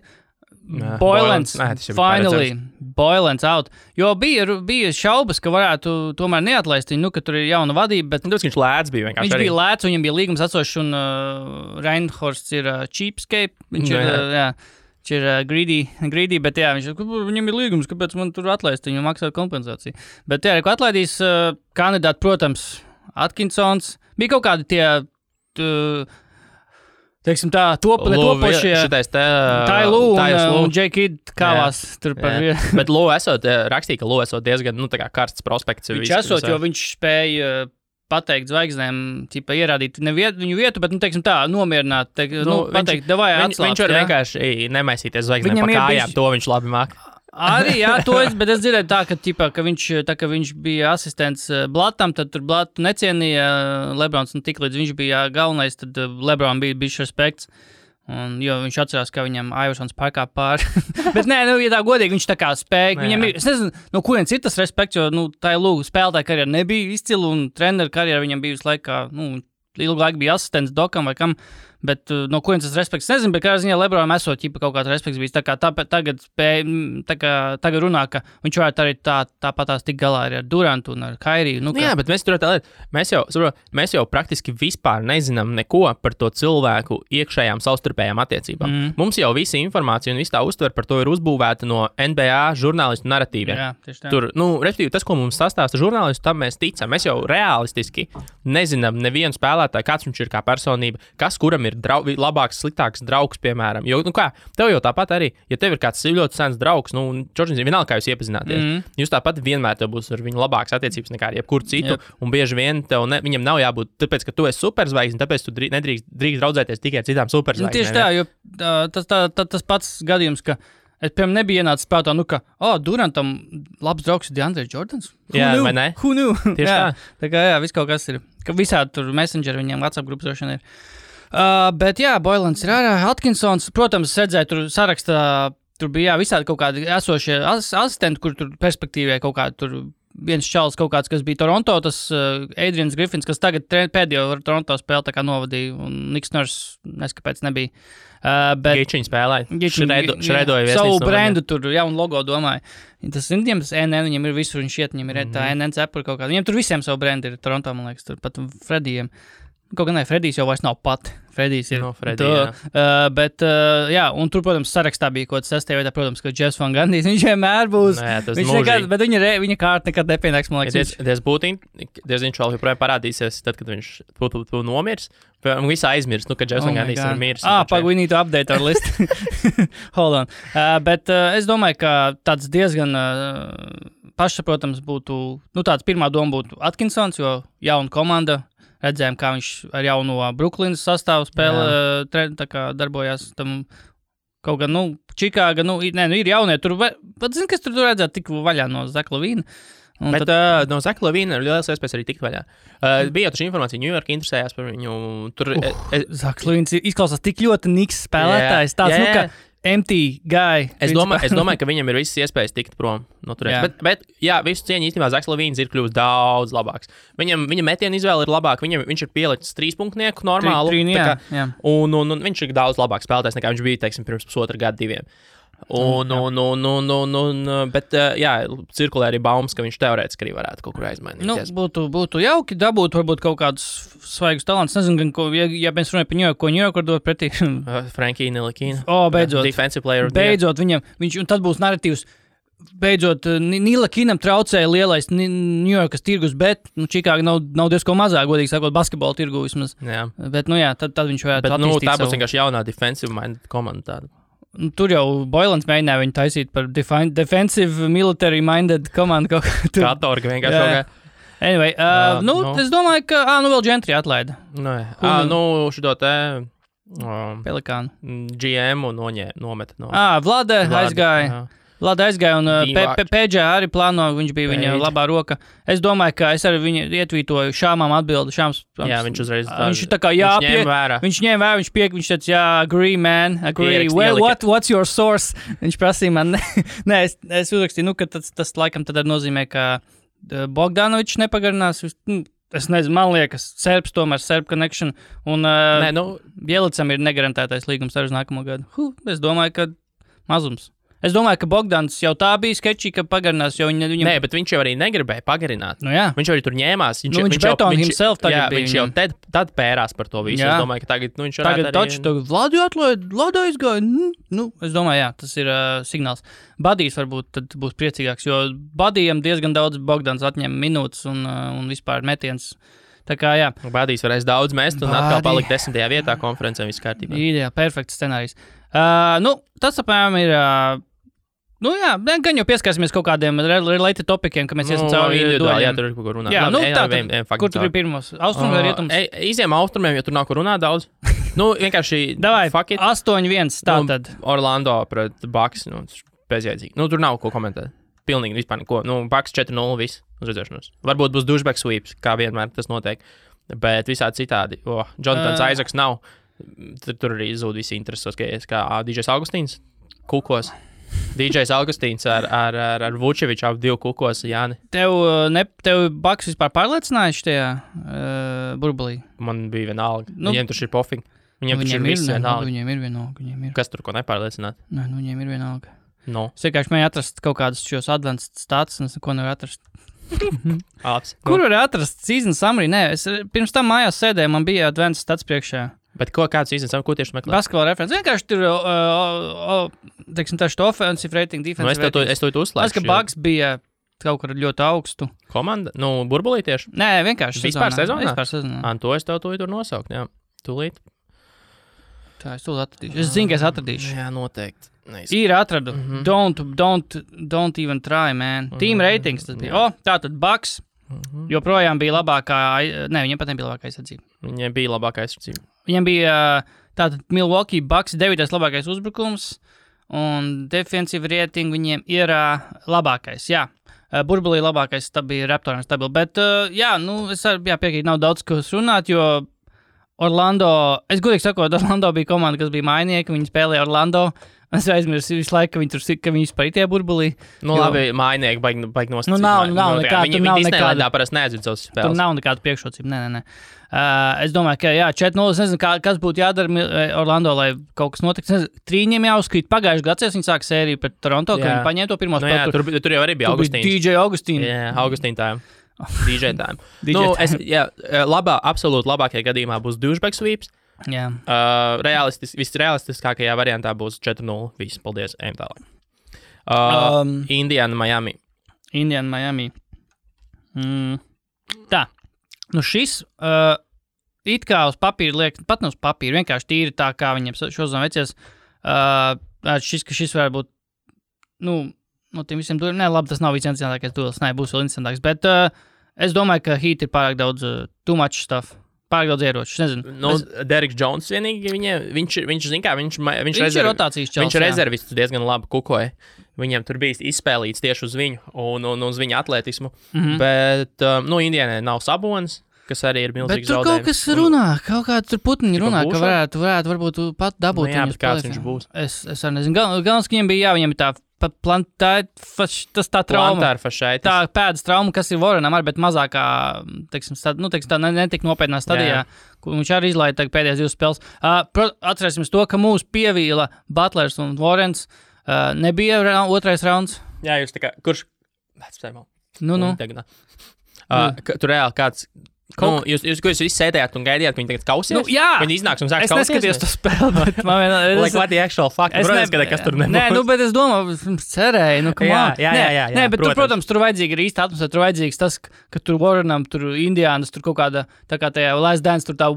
Boylens, finally, Boylens out. Jo bija šaubas, ka varētu tomēr neatlaist viņu, ka tur ir jauna vadība, bet... Viņš lēts bija vienkārši. Viņš bija lēts, viņam bija līgums atsošs, un Reinhorsts ir cheapskate. Viņš ir greedy, bet viņam ir līgums, kāpēc man tur atlaist, viņam maksā kompensāciju. Bet ko atlaidīs kandidāti, protams, Atkinsons. Bija kaut kādi teiksim tā, topošie. Šitais te... Tailu un J-Kid kāvās tur par vienu. Bet Lou rakstīja, ka Lou esot diezgan, tā kā karsts prospekts. Viņš esot, jo viņš spēja pateikt zvaigznēm, ķipa ierādīt viņu vietu, bet, teiksim tā, nomierināt, pateikt, davai atslāpt. Viņš var vienkārši nemaisīties zvaigznēm pa kājām, to viņš labi māk. Arī, jā, bet es dzirdēju tā, ka viņš bija asistents Blatam, tad tur Blatu necienīja Lebrons, un tik līdz viņš bija galvenais, tad Lebron bija bišķi respekts, jo viņš atcerās, ka viņam Iversons pārkāp pāri. Bet nē, ja tā godīgi, viņš tā kā spēja, viņam ir, es nezinu, no kurienes ir tas respekts, jo, tā ir spēlētāja karjera nebija izcila, un treneru karjera viņam bija visu laiku, ilgu laiku bija asistents Dokam vai kam, bet no kurienes tas respekts nezinu, bet kādā ziņā Lebronam esot kaut kāds respekts bijis, tā kā tagad runā, ka viņš varētu arī tāpatās tik galā arī ar Durantu un ar Kairiju. Jā, bet mēs tur tā lieta, mēs jau praktiski vispār nezinām neko par to cilvēku iekšējām savstarpējām attiecībām. Mums jau visa informācija un visa tā uztver par to ir uzbūvēta no NBA žurnālistu naratīviem. Jā, tieši tā. Tur, respektīvi, tas, ko mums sastāsta žurnālistu, tam mēs ticam. Mēs jau realistiski nezinām nevienu spēlētāju, kāds viņš ir kā personība, kas kuram ir labāks, sliktāks draugs, piemēram. Jo, tev jau tāpat arī, ja tev ir kāds ļoti sens draugs, Čorģins, vienalga, kā jūs iepazināties, jūs tāpat vienmēr tev būs ar viņu labākas attiecības nekā ar jebkuru citu, un bieži vien viņam nav jābūt, tāpēc, ka tu esi superzvaigzne, tāpēc tu nedrīkst draudzēties tikai ar citām superzvaigznēm. Tieši tā, jo tas pats gadījums, ka es, piemēram, nebija ienācis prātā, ka, Durantam labs draugs ir DeAndre Jordans. Vai ne? Who knew? Tieši tā. Tā kā, viss kaut kas ir. Ka visādi tur Messenger viņiem WhatsApp grupas droši ir. Bet jā, Boilans ir ārā. Atkinsons, protams, redzēja tur sarakstā, tur bija visādi kaut kādi esošie asistenti, kur tur perspektīvē kaut kādi tur viens čalis kaut kāds, kas bija Toronto, tas Adrians Griffins, kas tagad pēdējo Toronto spēli tā kā novadīja, un Niks Nurse neskapēc nebija. Gičiņi spēlēja. Šredoja savu brendu tur, un logo domāju. Tas viņiem, tas NN, viņiem ir visur, viņš iet, viņiem ir tā NN cepura kaut kāda. Viņiem tur visiem savu brendu ir Toronto, man liekas, tur pat Fredijiem. Kaut gan Fredijs jau vairs nav pat. Fredijs ir. Bet, un tur, protams, sarakstā bija kaut kas 6. vietā, protams, ka Jeffs Van Gundy, viņš vienmēr būs. Bet viņa kārta nekad nepienāks, man liekas. Viņš vēl joprojām parādīsies, tad, kad viņš būtu nomirs. Visu aizmirst, ka Jeffs Van Gundy ir mirs. We need to update our list. Hold on. Bet es domāju, ka tāds diezgan pašsaprotams būtu, tāds pirmā doma būtu Atkinsons, jo jauna komanda. Redzējām, kā viņš ar jauno Brooklynas sastāvu spēle darbojās tam kaut gan, Čikāga, ir jaunie, tur, pat zini, kas tur redzēt tik vaļā no Zaka Lavīna. Bet no Zaka Lavīna ir liels iespējas arī tikt vaļā. Bija jau taču informācija, New York interesējās par viņu. Zaka Lavīns izklausās tik ļoti niks spēlētājs, tāds, ka empty guy. Es domāju, ka viņam ir visas iespējas tikt prom no turienes. Bet jā, visu cieņu īstenībā Zaks Lavīns ir kļuvis daudz labāks. Viņa metiena izvēle ir labāka. Viņš ir pielicis 3-punktnieku normālu. Un viņš ir daudz labāks spēlētājs nekā viņš bija, teiksim, pirms pusotra gada 2. Bet cirkulē arī baumas, ka viņš teorētiski arī varētu kaut kur aizmainīties. Būtu jauki dabūt varbūt kaut kādus svaigus talants. Nezinu, ja mēs runājam par Ņujorku, ko Ņujorku var dot pretī. Frankie Nilikina. Beidzot. Defensive player. Beidzot viņš, un tad būs narratīvs. Beidzot, Nilikinam traucēja lielais Ņujorkas tirgus, bet Čikāga nav diezko mazāk, godīgi sakot, basketbola tirgu vismaz. Jā. Bet, tad viņš varētu attīstīt tā būs vienkārši jaunā defensive minded komanda tāda. Tur jau Boilans mēģināja viņu taisīt par defensive military minded komandu kaut kā tur. Katorga vienkārši kaut kā. Anyway, es domāju, ka, vēl Gentry atlaida. Šito te... Pelikānu. GM un nometa no... Vlade aizgāja. Vlada aizgāja un PG arī plāno, viņš bija viņa labā roka. Es domāju, ka es arī viņu ietvītoju Šāmām atbildi. Jā, viņš uzreiz viņš tā kā ņēma vērā. Viņš teica, agree, man, agree. What's your source? Viņš prasīja man, es uzrakstīju, ka tas laikam tad nozīmē, ka Bogdanovičs nepagarinās. Es nezinu, man liekas, tomēr Serb connection. Un Bielicam ir negarantētais līgums arī uz nākamo gadu. Es domāju, ka mazums. Es domāju, ka Bogdans jau tā bija sketčī, ka pagarinās, jo viņam... Nē, bet viņš jau arī negribēja pagarināt. Viņš jau arī tur ņēmās. Viņš beton himself tagad bija. Viņš jau tad pērās par to visu. Es domāju, ka tagad viņš varētu arī... Tagad Vladu atlaid, Vladu aizgāja. Es domāju, tas ir signāls. Badijs varbūt tad būs priecīgāks, jo Badijam diezgan daudz Bogdans atņem minūtes un vispār metiens. Tā kā, jā. Bādīs varēs daudz mest un atkal palikt 10. vietā konferencē viss kārtībā. Ideāli, perfekts scenārijs. Tas apmēram ir... gan jau pieskārsimies kaut kādiem related topikiem, ka mēs esam cauri individuāli, jā, tur ir ko runāt. Jā, kur tur ir pirmos? Austrums vai rietums? Iziem austrumiem, jo tur nav ko runāt daudz. Vienkārši... Davai, 8-1, tātad. Orlando pret Bucks, bezjēdzīgi. Tur nav ko komentēt. Pilnīgi vispār neko. Bucks 4-0, viss uz redzēšanos. Varbūt būs douchebag sweeps, kā vienmēr tas notiek. Bet visādi citādi. Jonathans Isaacs nav. Tur arī zūd visi interesos, kā DJs Augustīns kukos. DJs Augustīns ar Vučeviču ap 2 kukos, Jāni. Tev Bucks vispār pārliecinājuši tajā burbulī? Man bija vienalga. Viņiem tur ir pofīgi. Viņiem tur ir viss vienalga. Viņiem ir vienalga. Kas tur ko nepārliecināt? Nē, viņiem ir vienalga. No. Es vienkārši mēģināju atrast kaut kādus šos advanced stats, un es neko nevaru atrast. Kur var atrast season summary? Nē, es pirms tam mājās sēdēju, man bija advanced stats priekšā. Bet kāds season summary, ko tieši meklē? Basketball reference. Vienkārši tur, teiksim, tā šito offensive rating, defensive rating. Es to uzslēgšu. Tas, ka Bucks bija kaut kur ļoti augstu. Komanda? Burbulī tieši? Nē, vienkārši Vispār sezonā? Vispār sezonā. To es tev tur nosaukt, jā. Tūlīt. Tā, es tūlīt atradīšu. Es zinu, ka es atradīšu. Jā, noteikti. Ir atradu. Don't even try, man. Team ratings tas bija. Tātad Bucks joprojām bija labākā, viņiem pat nebija labākā aizsardzība. Viņiem bija labākā aizsardzība. Viņiem bija tātad Milwaukee Bucks 9. labākais uzbrukums un defensive rating viņiem ir labākais, jā. Burbulī labākais bija Raptoriem stabili, bet es piekrītu, nav daudz, ko runāt, jo Orlando, es godīgi sakot, Orlando bija komanda, kas bija mainnieki, viņi spēlēja Orlando. Es aizmirsu visu laiku, ka viņi vispār ir tie burbulī. Labi, mainnieki baigi nostācīt. Nav nekāda. Viņi Disneylandā parasti neatzīt savus spēles. Tur nav nekāda priekšrocība, nē. Es domāju, ka 4-0, es nezinu, kas būtu jādara Orlando, lai kaut kas notiktu. Trīņiem jāuzkrīt pagājušajā gads, viņi sāk sēriju pret Toronto, ka viņi paņēma to pirmo spēli. Tur jau arī bija Augustīns. DJ Augustīns. Jā, Augustīn tājiem. DJ tājiem. Absolūti labākajā gadījumā būs douchebag sweeps. Jā. Visrealistiskākajā variantā būs 4-0. Viss, paldies, ejam tālāk. Indiana, Miami. Tā. Šis it kā uz papīra liek, pat ne uz papīra, vienkārši tīri tā, kā viņiem šodien veicies. Šis varētu būt, no tiem visiem dueliem. Nē, labi, tas nav visinteresantākais duels. Nē, būs vēl interesantāks. Bet es domāju, ka Heat ir pārāk daudz too much stuff. Pārāk daudz ieroču, nezinu. Derriks Jones vienīgi, viņš zin kā, viņš ir rotācijas čels, viņš rezervists diezgan labi kukoja. Viņam tur bija izspēlīts tieši uz viņu un uz viņa atletismu. Bet, Indianai nav Sabonis, kas arī ir milzīgs zaudējums. Bet tur kaut kas runā, kaut kā tur putniņi runā, ka varētu varbūt pat dabūt viņu. Jā, bet kāds viņš būs? Es arī nezinu. Galvenais, ka viņam ir tā tas tā trauma. Tā pēdas trauma, kas ir Warrenam arī, bet mazākā, tā netik nopietnā stadijā, kur viņš arī izlaida pēdējās 2 spēles. Atcerēsimies to, ka mūs pievīla Butlers un Warrens. Nebija otrais rauns. Jā, jūs tā kā, kurš? Tur reāli kāds... Jūs visi sēdējāt un gaidījāt, ka viņi tagad kausies? Viņi iznāks un sāks kausties? Es neskatījos to spēli, bet man vienā... What the actual fuck? Kas tur nebūs? Nē, bet es domāju, cerēju, Jā, nē, bet protams, tur vajadzīga ir īsta atmosfēra, tur vajadzīgs tas, ka tur Warrenam, tur Indiānas, tur kaut kāda, tā kā tajā Last Dance, tur tā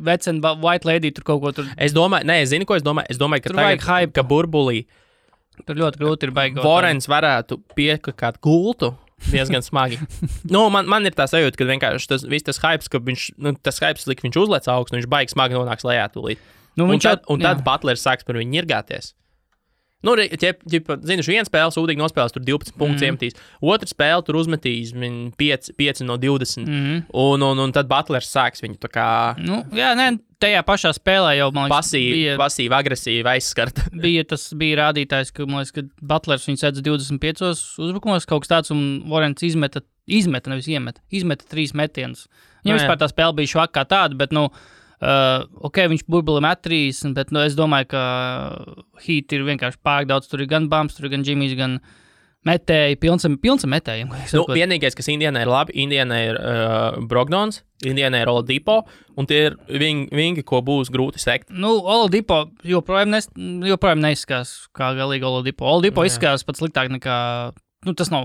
vecena White Lady, tur kaut ko tur... Es zinu, ko es domāju. Es domāju, ka tagad, ka burbulī... Tur ļoti grūti ir baigi. Warrens varētu piekakāt gultu. Diezgan smagi. Man ir tā sajūta, ka vienkārši tas hypes, ka tas hypes lika viņš uzlec augstu, un viņš baigi smagi nonāks lejā tūlīt. Tad Butlers sāks par viņu ņirgāties. Zinu, viena spēle sūdīgi nospēlēs, tur 12 punktus iemetīs. Otra spēle tur uzmetīs 5 no 20. Un tad Butlers sāks viņu tā kā... Tajā pašā spēlē jau, man liekas, pasīvi, agresīvi aizskart. bija rādītājs, ka, man liekas, ka Butlers viņu sedz 25 uzbrukumos, kaut kas tāds, un Warrens izmeta, nevis izmeta 3 metienus. Viņam vispār tā spēle bija švaka kā tāda, bet, viņš burbuli met 3, bet, es domāju, ka Heat ir vienkārši pārāk daudz, tur ir gan Bums, tur ir gan Jimmys, gan metēji, pilns ar metējiem. Vienīgais, kas Indianai ir labi, Indianai ir Brogdons, Indianai ir Oladipo, un tie ir vingi, ko būs grūti sekt. Oladipo joprojām neizskās kā galīgi Oladipo. Oladipo izskās pat sliktāk nekā tas nav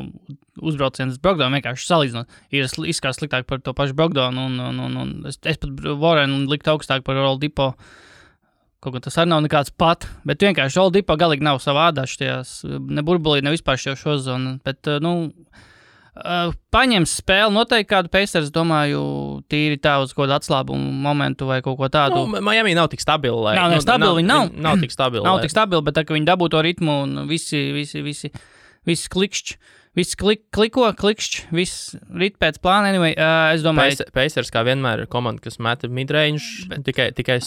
uzbrauciens Brogdonu, vienkārši salīdzinot. Ir izskatās sliktāk par to pašu Brogdonu, un es pat Warrenu liktu augstāk par Oladipo. Kaut kā tas arī nav nekāds pat, bet vienkārši Oladipo galīgi nav savā ādā šajās, ne burbulī, ne vispār šo zonu, bet, paņems spēli noteikti kādu Pacers, domāju, tīri tā uz kaut kādu atslābumu momentu vai kaut ko tādu. Miami nav tik stabili. Viņi nav tik stabili. Nav tik stabili, bet tā, ka viņi dabū to ritmu un visi klikšķi. Viss klikšķi, viss rit pēc plāna. Anyway, es domāju... Pacers kā vienmēr ir komanda, kas meta midrange, tikai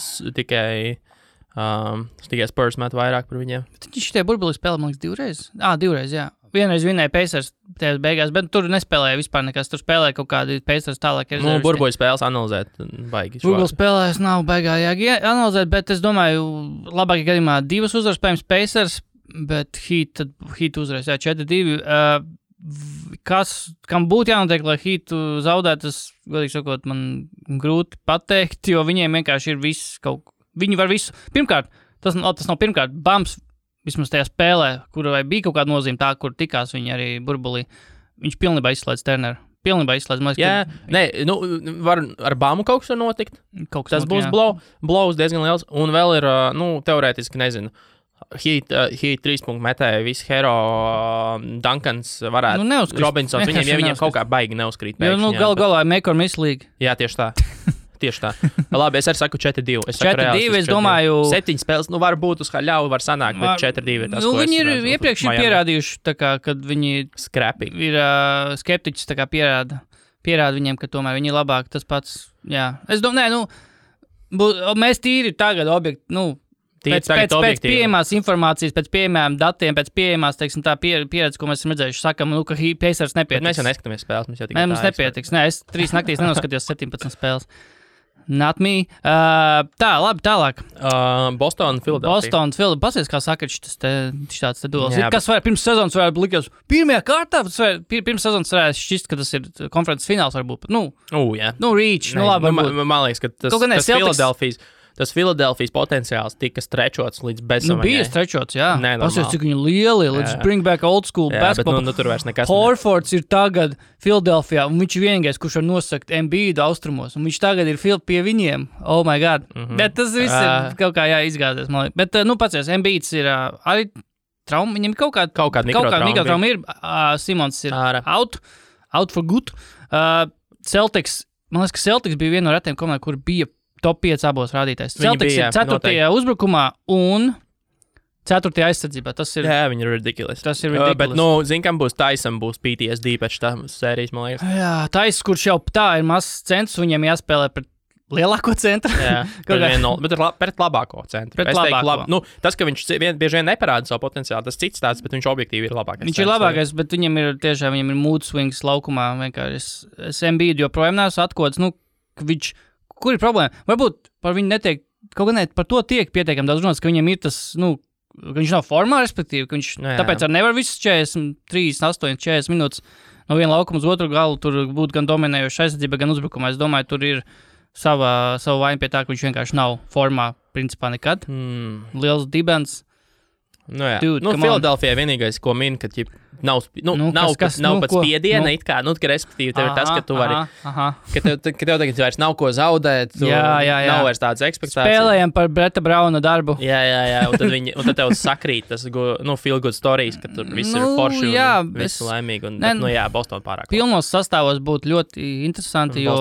Spurs met vairāk par viņiem. Viņš tie burbuli spēlē, man liekas, divreiz, jā. Vienreiz vinēja Pacers tajās beigās, bet tur nespēlēja vispār nekas. Tur spēlēja kaut kādi Pacers tālāk. Burbuļu spēles analizēt baigi. Burbuļu spēlēs nav baigā analizēt, bet es domāju, labākajā gadījumā 2 uzvaras spējams Pacers, bet Heat uzvarēs, 4-2. Kam būtu jānotiek, lai Heatu zaudētu, tas, godīgi sakot, man grūti pateikt, jo viņiem vienkārši ir viss viņi var visu. Pirmkārt, tas nav pirmkārt, Bams, vismaz tajā spēlē, kurai bija kaut kāda nozīme tā, kur tikās viņi arī burbulī, viņš pilnībā izslēdz Turneru. Var ar Bamu kaut kas var notikt. Tas būs blows diezgan liels, un vēl ir, teorētiski, nezinu, Heat 3 punktu metēja, visi Hero, Duncans varētu, Robinsons, viņiem kaut kā baigi neuzkrīt. Galā make or miss league. Jā, tieši tā. Labi, es arī saku 4-2. 4-2, es domāju... 7 spēles, var būt uz ļauju, var sanākt, bet 4-2 ir tas, ko viņi ir iepriekš pierādījuši, tā kā, kad viņi ir skeptiķis, tā kā pierāda viņiem, ka tomēr viņi ir labāk, tas pats, jā. Es domāju, mēs tīri tagad pēc pieejamās informācijas, pēc pieejamām datiem, pēc pieejamās, teiksim, tā pieredze, ko mēs esam redzējuši, sakam, ka Pacers nepietiks. Bet mēs jau neskatāmies spēles, mums nepietiks. Nē, es 3 naktīs nenoskatījos 17 spēles. Not me. Labi, tālāk. Boston, Philadelphia. Pasies, kā saka, šis tāds duels. Kas pirms sezonas varētu likties? Pirmajā kārtā, pirms sezonas varētu šķist, ka tas ir konferences fināls varbūt. Reach. Labi, man liekas, ka tas Philadelphijas potenciāls tika strečots līdz bezsamaņai. Bija strečots, jā. Pasies, cik viņi lieli. Let's bring back old school basketball. Bet tur vairs nekas. Horfords ir tagad Philadelphijā, un viņš ir vienīgais, kurš var nosakt Embiidu austrumos, un viņš tagad ir pie viņiem. Oh my God. Bet tas viss ir kaut kā jāizgāzies, man liekas. Bet, pasies, Embiids ir arī trauma, viņam kaut kāda mikrotrauma ir. Simons ir out for good. Celtics, man liekas, ka Celtics bija viena no retiem komandām, kur bija top 5 abos rādītājs. Celtics ir 4. uzbrukumā un 4. aizsardzībā. Tas ir... Jā, viņi ir ridiculous. Bet, kam būs Tyson, būs PTSD pēc tā sērijas, man liekas. Jā, Tyson, kurš jau tā ir mazs centrs, viņam jāspēlē pret lielāko centru. Jā, pret labāko centru. Tas, ka viņš bieži vien neparāda savu potenciālu, tas cits tāds, bet viņš objektīvi ir labākais. Viņš ir labākais, bet viņam ir mood swings laukumā. Es Embiidu joprojām neesmu atkods, kur ir problēma? Varbūt par viņu netiek, kaut gan par to tiek pietiekami daudz runāts, ka viņam ir tas, ka viņš nav formā, respektīvi, ka viņš tāpēc arī nevar visas 40 minūtes no viena laukuma uz otru galu, tur būtu gan dominējoša aizsardzība, gan uzbrukumā. Es domāju, tur ir savu vainu pie tā, ka viņš vienkārši nav formā, principā nekad. Liels dibens. Philadelphijā vienīgais, ko min, ka nav pat spiediena, ka respektīvi tev ir tas, ka tu vari, ka tev tagad vairs nav ko zaudēt, nav vairs tādas ekspektācijas. Spēlējam par Breta Brauna darbu. Jā, un tad tev sakrīt tas, feel good stories, ka tur viss ir forši un viss laimīgi, Boston pārāk. Pilnos sastāvos būtu ļoti interesanti, jo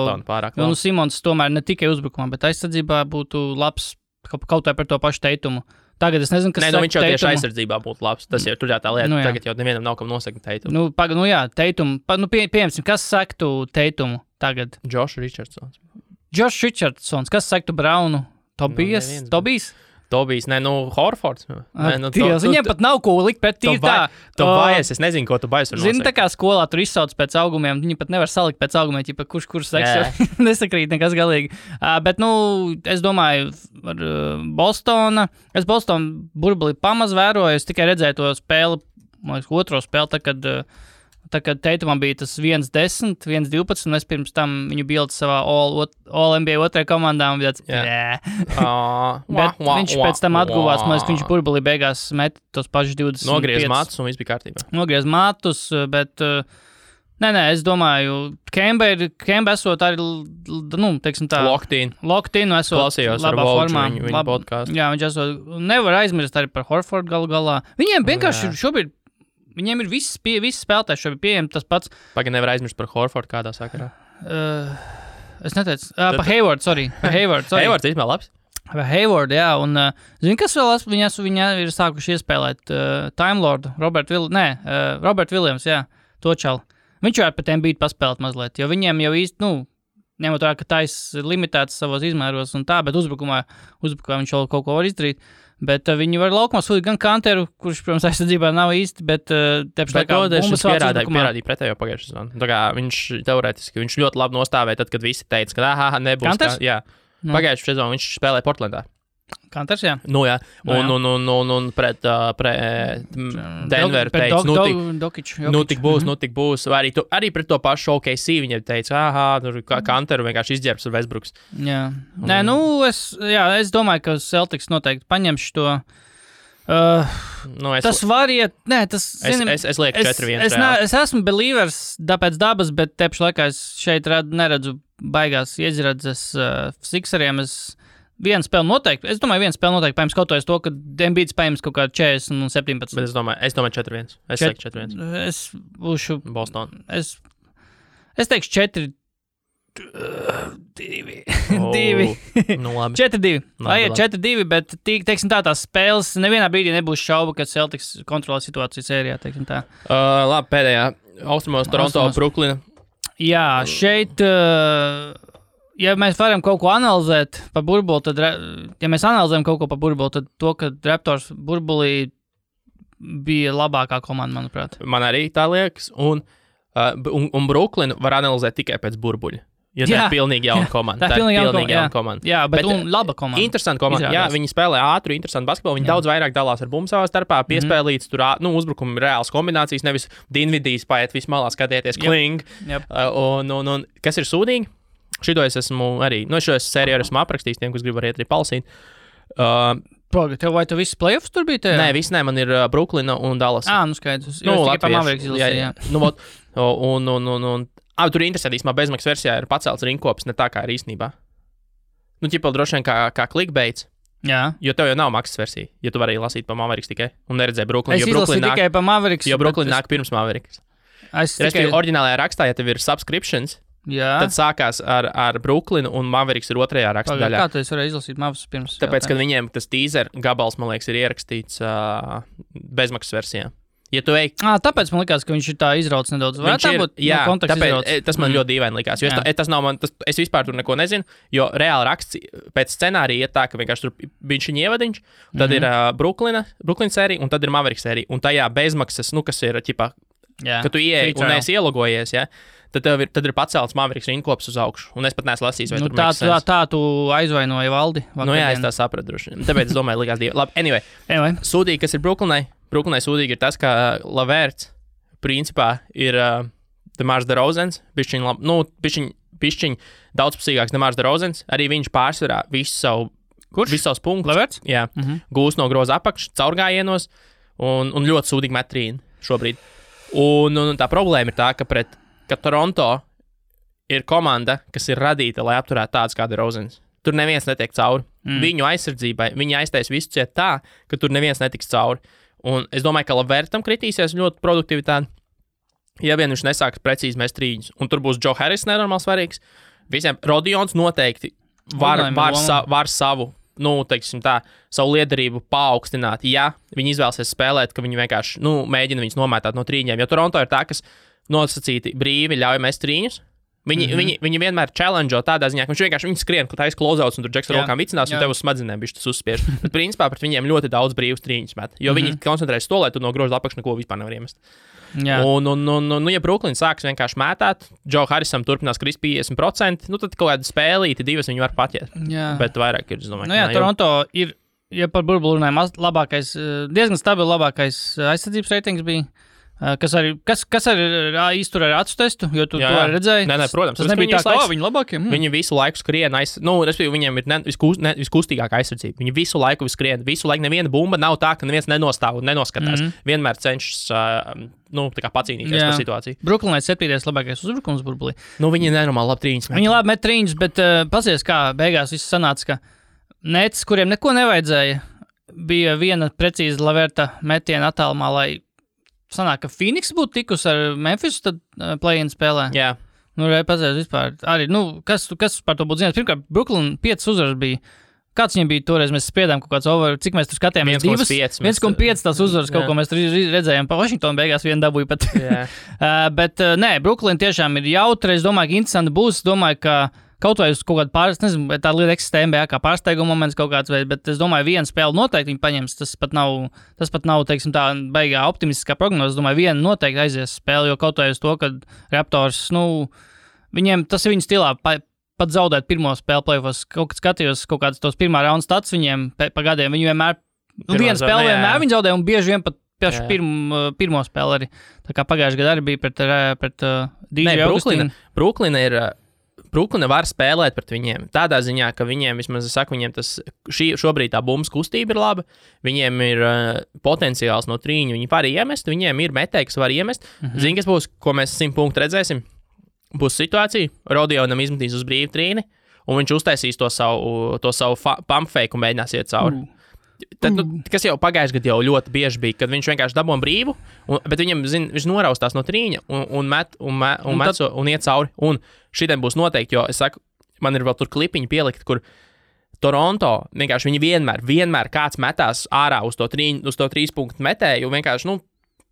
Simons tomēr ne tikai uzbrukumā, bet aizsardzībā būtu labs kaut vai par to pašu Teitumu. Tagad es nezinu, kas viņš jau tieši aizsardzībā būtu labs. Tas ir tur tā lieta. Tagad jau nevienam nav kam nosakt Teitumu. Teitumu. Piemēram, kas sektu Teitumu tagad? Josh Richardsons. Kas sektu Braunu? Tobijs, Horfords. Viņiem pat nav ko likt pret tīri tā. Tu baies, es nezinu, ko tu baies. Zini, tā kā skolā tur izsauc pēc augumiem, viņi pat nevar salikt pēc augumiem, ja kurš seksu nesakrīt nekas galīgi. Bet, es domāju, ar Bostonu burbuli pamaz vēroju, es tikai redzēju to spēli, otro spēli, kad tā kad Teitumam bija tas 1-10, 1-12, un es pirms tam viņu bildu savā All-NBA otrajā komandā, un bija tāds, bet viņš pēc tam atguvās, man liekas, viņš burbulī beigās met tos pašus 20. Nogriez matus, un viss bija kārtībā. Nogriez matus, bet... Nē, es domāju, Kemba esot arī, teiksim tā... Locked-in esot klausījos labā formā. Viņa podcastu. Jā, viņš esot... Nevar aizmirst arī par Horfordu galu galā. Viņiem vienkārši šobrīd... Viņiem ir visi spēlētāji šobrīd pieejami tas pats... Pagaid nevar aizmirst par Horfordu kādā sakarā. Es neteicu. Par Hayward, sorry. Hayward īstenībā labs. Par Hayward, jā. Un, zini, kas vēl viņa ir sākuši iespēlēt? Time Lord, Robert Williams, jā. To čalu. Viņš jau ar pat Embiid paspēlēt mazliet, jo viņiem jau īsti, ņemot tā, ka tais ir limitēts savos izmēros un tā, bet uzbrukumā viņš vēl kaut ko var izdarīt. Bet viņi var laukumā sūtīt gan Kanteru, kurš, protams, aizsardzībā nav īsti, bet tepš laikā bumbas vāc uzbrukumā. Pierādīja pretējo pagājušajā sezonā. Tā kā viņš teorētiski, viņš ļoti labi nostāvēja tad, kad visi teica, ka nebūs. Kanters? Jā. Pagājušajā sezonā viņš spēlēja Portlandā. Kanters, jā. Jā. Un pret Denveru teica, tik būs. Vai arī pret to pašu OKC viņiem teica, tur Kanteru vienkārši izģērbs ar Westbrooks. Jā. Nē, es domāju, ka Celtics noteikti paņemš to. Tas var iet, es lieku 4-1. Es esmu believers pēc dabas, bet tepš laikā es šeit neredzu baigās iezredzes Sixeriem. Viena spēle noteikti. Es domāju, viena spēle noteikti paņems kaut to, ka Embiid spējams kaut kādā 40 un 17. Bet es domāju 4-1. Es teikšu 4-1. Es būšu... Boston. Es teikšu 4-2. 4-2. Lai ir 4-2, bet teiksim tā, tās spēles nevienā brīdī nebūs šauba, ka Celtics kontrolē situāciju sērijā, teiksim tā. Labi, pēdējā. Austrumos Toronto, Bruklina. Jā, šeit... Ja mēs varam kaut ko analizēt par burbuli, tad, ja mēs analizējam kaut ko par burbuli, tad to, ka Raptors burbulī bija labākā komanda, manuprāt. Man arī tā liekas, un Bruklinu var analizēt tikai pēc burbuļa. Jo tā ir pilnīgi jauna komanda. Tā ir pilnīgi jauna komanda. Jā, bet laba komanda. Interesanta komanda. Jā, viņi spēlē ātru, interesantu basketbolu. Viņi daudz vairāk dalās ar bumbu savā starpā, piespēlīts tur, uzbrukumi reāls kombinācijas, nevis Dinvidijs paiet vismalā skatieties, kling. Un kas ir sūdīgi? Šito es esmu arī, šo sēriju esmu aprakstījis tiem, kas grib arī palasīt. Vai tu viss playoffs tur bija tajā? Nē, viss nē, man ir Bruklina un Dallas. Skaidrs. Tikai pa Mavericks izlasīju, tur ir interesanti, īstenībā bezmaksas versijā ir pacelts rinkops, ne tā kā ir īstenībā. Ķipa droši vien kā clickbaits. Jā. Jo tev jau nav maksas versija, ja tu vari lasīt pa Mavericks tikai un neredzēji Bruklinu. Es izlasīju tikai pa Mavericks. Jo Bruklina nāk pirms Mavericks. Respektīvi, oriģinālajā rakstā, ja tev ir subscriptions, tad sākās ar Bruklinu un Mavericks ir otrajā raksta daļā. Kā tu varēji izlasīt Mavericks pirms? Tāpēc, kad viņiem tas teaser gabals, man liekas, ir ierakstīts bezmaksas versijā. Ja tu ej... Tāpēc man likās, ka viņš ir tā izrauts nedaudz. Tas man ļoti dīvaini likās. Jo tas nav man, es vispār tur neko nezinu, jo reāli raksts pēc scenārija iet tā, ka vienkārši tur viņš ir ievadiņš, tad ir Bruklina sērija un tad ir Mavericks sērija. Un tajā bezmaksas, kas ir, ķipā, ka tu ieej un neesi ielogojies, ja? Tad ir pacelts Mavericks rinkops uz augšu. Un es pat neesmu lasījis, vai tur maksas sens. Tā tu aizvainoji valdi. Jā, es tā sapratu droši. Tāpēc es domāju, likās divi. Labi, anyway. Sūdīgi, kas ir Bruklinai? Bruklinai sūdīgi ir tas, ka Lavērts principā ir Demars DeRozans. Bišķiņ daudzpusīgāks Demars DeRozans. Arī viņš pārsvarā visus savus punktus. Lavērts? Jā. Gūs no groza apakš, caurgājienos un ļoti sūdīgi metrīni šobrīd. Un tā problēma ir tā, ka Toronto ir komanda, kas ir radīta, lai apturētu tāds kā DeRozans. Tur neviens netiek cauri. Viņu aizsardzībai, viņi aiztais visu ciet tā, ka tur neviens netiks cauri. Un es domāju, ka Lavērtam kritīsies ļoti produktivitāte, ja vien viņš nesāks precīzi mest trīņus. Un tur būs Joe Harris nenormāli svarīgs. Visiem Rodions noteikti var savu, savu liederību paaugstināt, ja viņi izvēlsies spēlēt, ka viņi vienkārši, mēģina viņus nomētāt no trīņiem. Jo Toronto ir tā, kas nosacīti brīvi ļauj mest trīņus. Viņi vienmēr challenge tādā ziņā, ka viņš vienkārši skrien, ka tā ir close-outs un tur Džeks ar rokām vicinās un tev uz smadzenēm bišķi tas uzspiež. Bet principā pret viņiem ļoti daudz brīvus trīņus met, jo viņi koncentrējas to, lai tu no groza apakš neko vispār nevar iemest. Un ja Bruklina sāks vienkārši mētāt, Joe Harrisam turpinās krist 50%, tad kaut kāda spēlīti divas viņi var patiet. Bet vairāk ir, es domāju. Toronto ir, ja par burbuli runājam, diezgan stabili labākais aizsardzības reitings bija. Kas arī iztur ar acu testu, jo tu to redzēji? Nē, protams. Tas nebija tā, ka viņi labākie. Viņi visu laiku skrien, respektīvi, viņiem ir viskustīgākā aizsardzība. Viņi visu laiku skrien, visu laiku neviena bumba nav tā, ka neviens nenostāv un nenoskatās. Vienmēr cenšas tā kā pacīnīties par situāciju. Brooklynai 7. labākais uzbrukums burbulī. Viņi nenormāli labi trīņas met. Viņi labi met trīņas, bet pasies, kā beigās viss sanāca, ka Nets, kuriem neko nevajadzēja, bija viena precīza Laverta metiena attālumā, lai sanāk, ka Phoenix būtu tikus ar Memphisu, tad play-in spēlē. Jā. Pazies vispār. Arī, kas par to būtu zināt? Pirmkārt, Brooklyn 5 uzvaras bija. Kāds viņiem bija toreiz? Mēs spriedām kaut kāds over, cik mēs tur skatījāmies? 1,5 tās uzvaras, kaut ko mēs tur redzējām. Pa Washingtonu beigās vienu dabūju pat. Bet, Brooklyn tiešām ir jautri. Es domāju, ka interesanti būs. Domāju, ka kaut vai uz kaut kādu nezinu, tā lieta eksistē NBA kā pārsteiguma moments kaut kāds veids, bet es domāju, viena spēle noteikti viņi paņems. Tas pat nav, teiksim, tā baigā optimistiskā prognoze. Es domāju, viena noteikti aizies spēle, jo kaut vai uz to, ka Raptors, viņiem tas ir viņu stilā. Pat zaudēt pirmo spēli play-offs, skatījos kaut kādas tos pirmā raunda stats viņiem pa gadiem. Viņi vienmēr, viena spēle vienmēr viņi zaudēja un bieži vien pat pašu pirmo spēli arī. Tā kā pagājušajā gadā arī bija pret DJ Augustīnu. Brooklyn var spēlēt pret viņiem. Tādā ziņā, ka viņiem, vismaz es saku, viņiem šobrīd tā bumbas kustība ir laba, viņiem ir potenciāls no trīņa, viņi var iemest, viņiem ir metēji, kas var iemest. Zini, kas būs, ko mēs 100 punktu redzēsim? Būs situācija, Rodionam izmetīs uz brīvu trīni, un viņš uztaisīs to savu pump fake un mēģinās iet cauri. Tad, kas jau pagājušajā gadā jau ļoti bieži bija, kad viņš vienkārši dabūja brīvu, bet viņam, viņš noraustās no trīņa un iet cauri. Un šitiem būs noteikti, jo es saku, man ir vēl tur klipiņi pielikt, kur Toronto vienkārši viņi vienmēr kāds metās ārā uz to 3 punktu metēju, vienkārši,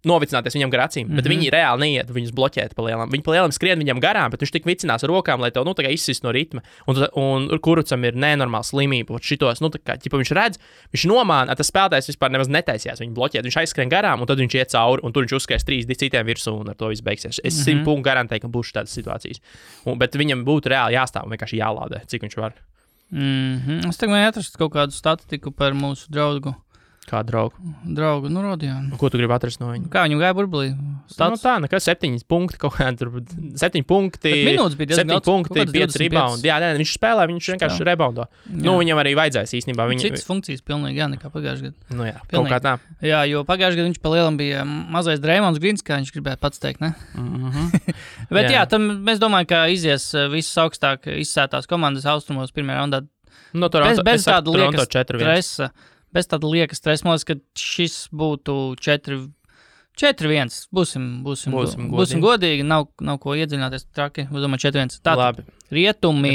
novicināties viņam gar acīm, bet viņi reāli neiet viņus bloķēt pa lielam. Viņi pa lielam skrien viņam garām, bet viņš tik vicinās ar rokām, lai tev, tā kā izsist no ritma. Un Kurucam ir nenormāla slimība. Šitos, tā kā, viņš redz, viņš nomāna, tas spēlētājs vispār nemaz netaisījās viņu bloķēt. Viņš aizskrien garām, un tad viņš iet cauri, un tur viņš uzskais 3 citiem virsū, un ar to viss beigsies. Es 100 punktu garantēju, ka būs tādas situācijas. Bet viņam būtu reāli jāstāv un vienkārši jālādē, cik viņš var. Es tagad atrastu kaut kādu statistiku par mūsu draugu. Kā draugu? Draugu, Rodionu. Ko tu gribi atrast no viņa? Kā viņam gāja burbulī? Tā, nekas 7 punkti, kaut kādā tur 7 punkti. Minūtes bija 7 punkti, 5 rebound. Jā, viņš spēlē, viņš vienkārši reboundo. Viņam arī vajadzēs īstenībā. Citas funkcijas pilnīgi, nekā pagājušajā gadā. Jā, pilnīgi. Kaut kā tā. Jā, jo pagājušajā gadā viņš pa lielam bija mazais Draymonds Greens, kā viņš gribēja pats teikt, ne? Bet jā, tam mēs domājam, ka izies visas augstāk izsētās komandas austrumos pirmajā raundā. No Toronto, bez tāda liekas 4-1. stresa. Bez tāda liekas stresa, man liekas, ka šis būtu 4-1. Būsim godīgi, nav ko iedziļināties traki. Es domāju, 4-1. Tātad, rietumi.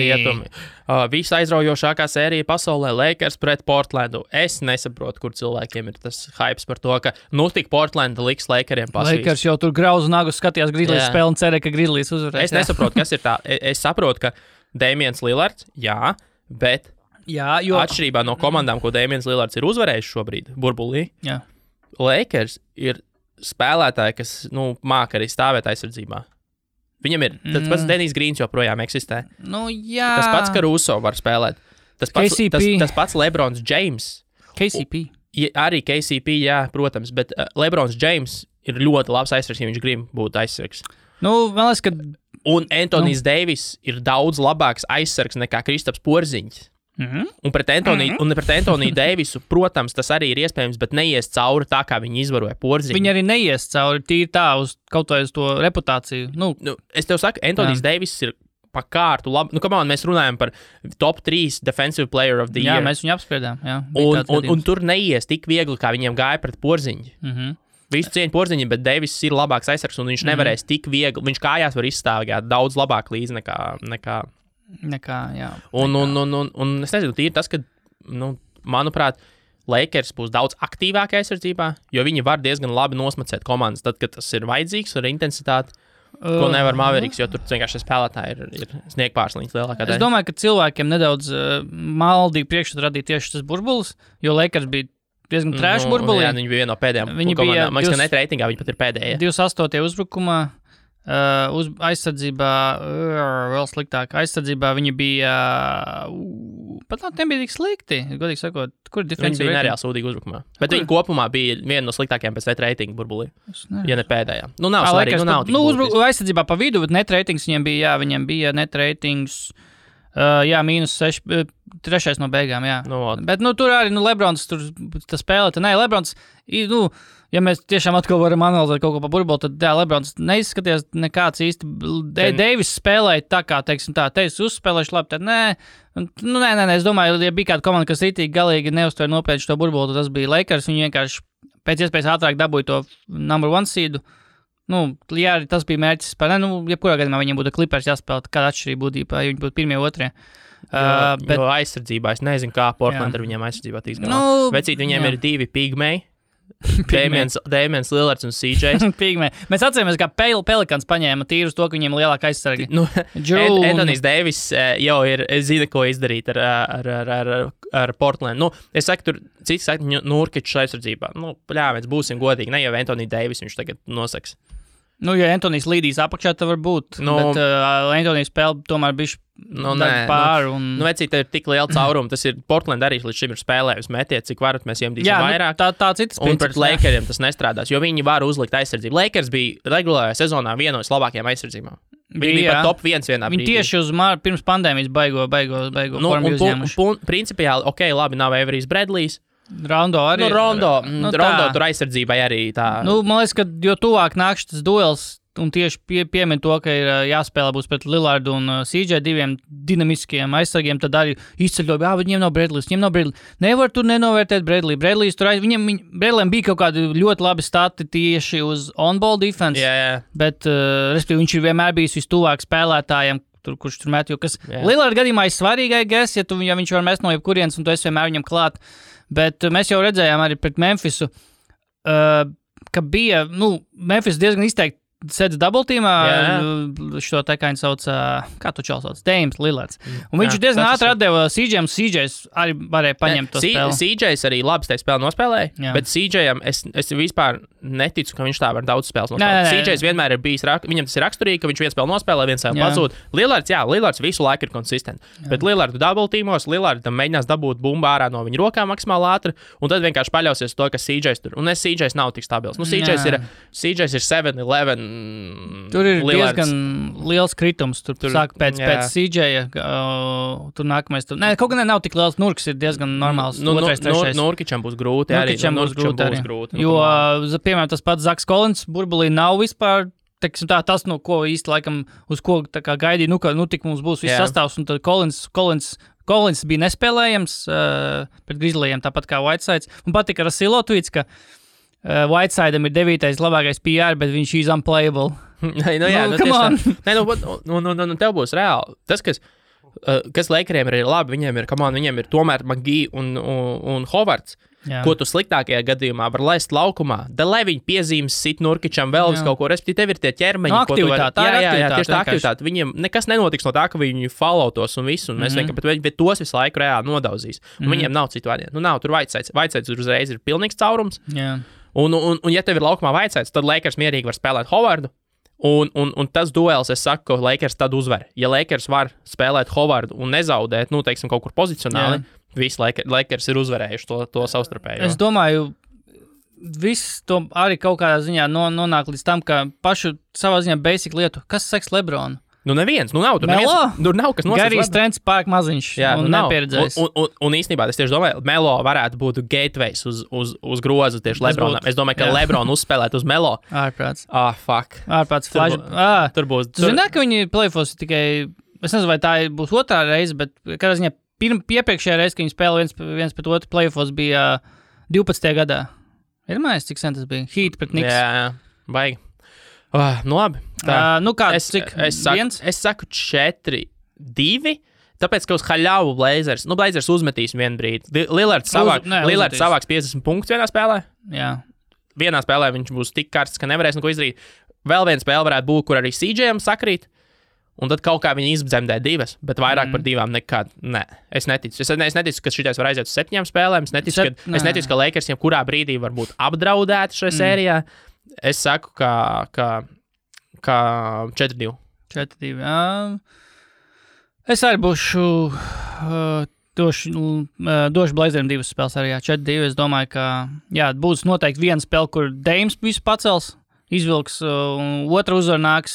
Visa aizraujošākā sērija pasaulē Lakers pret Portlandu. Es nesaprotu, kur cilvēkiem ir tas hypes par to, ka tik Portlanda liks Lakeriem pasvīst. Lakers jau tur grauzu nagus skatījās Grizzlies spēli un cerēja, ka Grizzlies uzvarēs. Es nesaprotu, kas ir tā. Es saprotu, ka Damians Lillards, jā, bet... Jā, jo atšķirībā no komandām, ko Damians Lillards ir uzvarējis šobrīd burbulī, Lakers ir spēlētāji, kas māca arī stāvēt aizsardzībā. Viņam ir tas pats Denijs Grīns joprojām eksistē. Jā. Tas pats Caruso var spēlēt. Tas pats LeBrons James. KCP. Arī KCP, jā, protams, bet LeBrons James ir ļoti labs aizsargs, ja viņš grib būt aizsargs. Man liekas, ka... Un Anthony's Davis ir daudz labāks aizsargs nekā Kristaps Porziņš. Un pret Antoniju Deivisu, protams, tas arī ir iespējams, bet neies cauri tā, kā viņi izvaroja Porziņu. Viņi arī neies cauri tīri tā uz kaut vai uz to reputāciju. Es tev saku, Antonijs Deivis ir pa kārtu labi. Mēs runājam par top 3 defensive player of the year. Jā, mēs viņu apspriedām. Un tur neies tik viegli, kā viņiem gāja pret Porziņu. Visu cieņu Porziņu, bet Deivis ir labāks aizsargs, un viņš nevarēs tik viegli. Viņš kājās var izstāvēt daudz labāk līdzi nekā jā. Un es nezinu, tīri tas, ka, manuprāt, Lakers būs daudz aktīvāk aizsardzībā, jo viņi var diezgan labi nosmacēt komandas, tad, kad tas ir vajadzīgs ar intensitāti, ko nevar Mavericks, jo tur vienkārši spēlētāji ir sniegpārsliņas lielākā daļa. Es domāju, ka cilvēkiem nedaudz maldīgi priekšstatu radīja tieši tas burbulis, jo Lakers bija diezgan trash burbulī. Jā, viņi bija viena no pēdējām komandām. Man liekas, ka net reitingā viņi pat ir pēdējie. 28. uzbrukumā. Aizsardzībā vēl sliktāk. Aizsardzībā viņi bija pat nebija tik slikti, godīgi sakot. Kur ir Viņi bija nereāli sūdīgi uzbrukumā. Bet viņi kopumā bija viena no sliktākajām pēc net reitinga burbulī. Ja ne pēdējā. Nu, nav svarīgi, nav tik būtiski. Aizsardzībā pa vidu, bet net reitings viņiem bija net reitings, -6, 3 no beigām, jā. Bet, tur arī, Lebrons tur spēlē, Lebrons, ja mēs tiešām atkal varam analizēt kaut ko pa burbuli, tad, Lebrons neizskaties nekāds īsti. Deivis spēlēja tā kā, teiksim tā, uzspēlējuši labi, tad nē, es domāju, ja bija kāda komanda, kas rītīgi galīgi neuztver nopietni šo burbuli, tad tas bija Lakers, viņi vienkārši pēc iespējas ātrāk dabūja to number 1 seedu. Jā, tas bija mērķis par, jebkurā gadījumā viņiem būtu Clippers jāspēlē, kāda atšķirība būtu, ja viņi būtu 1. 2. Jo aizsardzībā, es nezinu, kā Portland ar viņiem aizsardzībā tiks galā. Vecīt, viņiem ir 2 pigmeji. Damians Lillards un CJ. Mēs atceramies, kā Pelikans paņēma tīrus to, ka viņiem lielāka aizsargi. Anthony's Davis jau ir, es zinu, ko izdarīt ar Portland. Es saku, tur cits saka, Nurkičs aizsardzībā. Mēs būsim godīgi, ne jau Anthony Davis viņš tagad nosaks. Ja Antonijs līdīs apakšā, tad var būt, bet Antonijs spēle tomēr bišķi pāri. Vecīt, ir tik liela cauruma, tas ir Portland arī līdz šim ir spēlējis metiet, cik varat mēs iemdīsim vairāk. Tā citas un pret Lakeriem tas nestrādās, jo viņi var uzlikt aizsardzību. Lakers bija regulārajā sezonā viena no labākajām aizsardzībām. Viņi bija pat top 1 vienā brīdī. Viņi tieši uz pirms pandēmijas baigo formu uzņēmuši. Principiāli, labi, nav Averijs Bradlijs. Rondo arī. Rondo tur aizsardzībai arī tā. Man liekas, ka jo tuvāk nāk šis duels, un tieši piemin to, ka ir jāspēlē būs pret Lillardu un CJ 2 dinamiskiem aizsargiem, tad arī izceļoja, viņiem nav Bradlijs. Nevar tur nenovērtēt Bradliju. Bradlijs tur Bradlijam bija kaut kādi ļoti labi stati tieši uz on-ball defense, bet, respektīvi, viņš ir vienmēr bijis vistuvāk spēlētājiem, kurš tur met, jo kas Lillarda gadījumā ir svarīgais, ja viņš var mest no jebkurienes, un tu esi vienmēr viņam klāt. Bet mēs jau redzējām arī pret Memphisu, ka bija, Memphis diezgan izteikti sēdz double-teamā, šo te kā viņi sauc, kā tu čals sauc, Damians Lillards. Un viņš diezgan ātri atdeva CJ'am, CJ's arī varēja paņemt to spēli. CJ's arī labi tajā spēli nospēlēja, bet CJ'am es vispār neticu, ka viņš tā var daudz spēles nospēlēt. CJ's vienmēr ir bijis, viņam tas ir raksturīgi, ka viņš viens spēli nospēlē, viens spēli pazūd. Lillards visu laiku ir konsistents, bet Lillardu double-teamos, Lillardam mēģinās dabūt bumbu ārā no viņa rokām maksimāli ātri, un tad vienkārši paļausies to, ka CJ's tur. Un CJ's nav tik stabils. CJ's ir 7-11. Tur ir diezgan liels kritums. Tur sāk pēc CJ-ja. Tur nākamais. Kaut gan nav tik liels. Nurks ir diezgan normāls. Nurkičam būs grūti. Nurkičam būs grūti. Jo, piemēram, tas pats Zaks Collins burbulī nav vispār. Tas, ko īsti laikam, uz ko gaidīja, ka tik mums būs viss sastāvs. Un tad Collins bija nespēlējams pret Grizzlyiem, tāpat kā Whitesides. Un patika Rasilo tweets, ka Whiteside'am ir 9. labākais PR, bet viņš ir unplayable. Tev būs reāli. Tas, kas Lakeriem ir labi, viņiem ir tomēr McGee un Hovards, ko tu sliktākajā gadījumā var laist laukumā. Lai viņi piezīmes sit Nurkičam vēl vis kaut ko, respektīvi tev ir tie ķermeņi, ko tu vari. Tieši tā aktivitāte. Viņiem nekas nenotiks no tā, ka viņi followtos un visu, un mēs vienkārši, bet tos visu laiku reāli nodauzīs. Un viņiem nav citu variantu. Nav tur Whitesides. Whitesides uzreiz ir pilnīgs caurums. Un ja tev ir laukumā Whitesides, tad Lakers mierīgi var spēlēt Hovardu. Un tas duels, es saku, ka Lakers tad uzvar. Ja Lakers var spēlēt Hovardu un nezaudēt, teiksim, kaut kur pozicionāli, visi Lakers ir uzvarējuši to savstarpējo. Es domāju, viss to arī kaut kādā ziņā nonāk līdz tam, ka pašu savā ziņā basic lietu. Kas seks Lebronu? Neviens, nav. Tur nav kas nosaka. Garīs trends pārāk maziņš un nepieredzējis. Un īstenībā es tieši domāju, Melo varētu būt gateways uz grozu tieši Lebronam. Es domāju, ka Lebron uzspēlēt uz Melo. Ārprāts. Fuck. Ārprāts flash. Tur būs. Tu zini, ka viņi playoffs tikai, es nezinu, vai tā būs otrā reize, bet kādā ziņā iepriekšējā reize, ka viņi spēlē viens pret otru playoffs bija 12. gadā. Ir mājās, cik sen tas bija? Heat pret Knicks. Jā, baigi. Labi. Es saku 4-2, tāpēc, ka uz haļāvu Blazers uzmetīs vienu brīdi. Lillards savāks 50 punktus vienā spēlē. Jā. Vienā spēlē viņš būs tik karsts, ka nevarēs neko izdarīt. Vēl viena spēle varētu būt, kur arī CJ'am sakrīt, un tad kaut kā viņi izdzemdē 2, bet vairāk par 2 nekad. Nē, es neticu. Es neticu, ka šitais var aiziet uz 7 spēlēm. Es neticu, ka Lakers kurā brīdī var būt apdraudēti šajā sērijā. Es saku, ka kā 4-2. 4-2. Es arī būšu došu Blazeriem 2 spēles arī, 4-2. Es domāju, ka būs noteikti viena spēle, kur Dames visu pacels, izvilks, un otra uzvar nāks,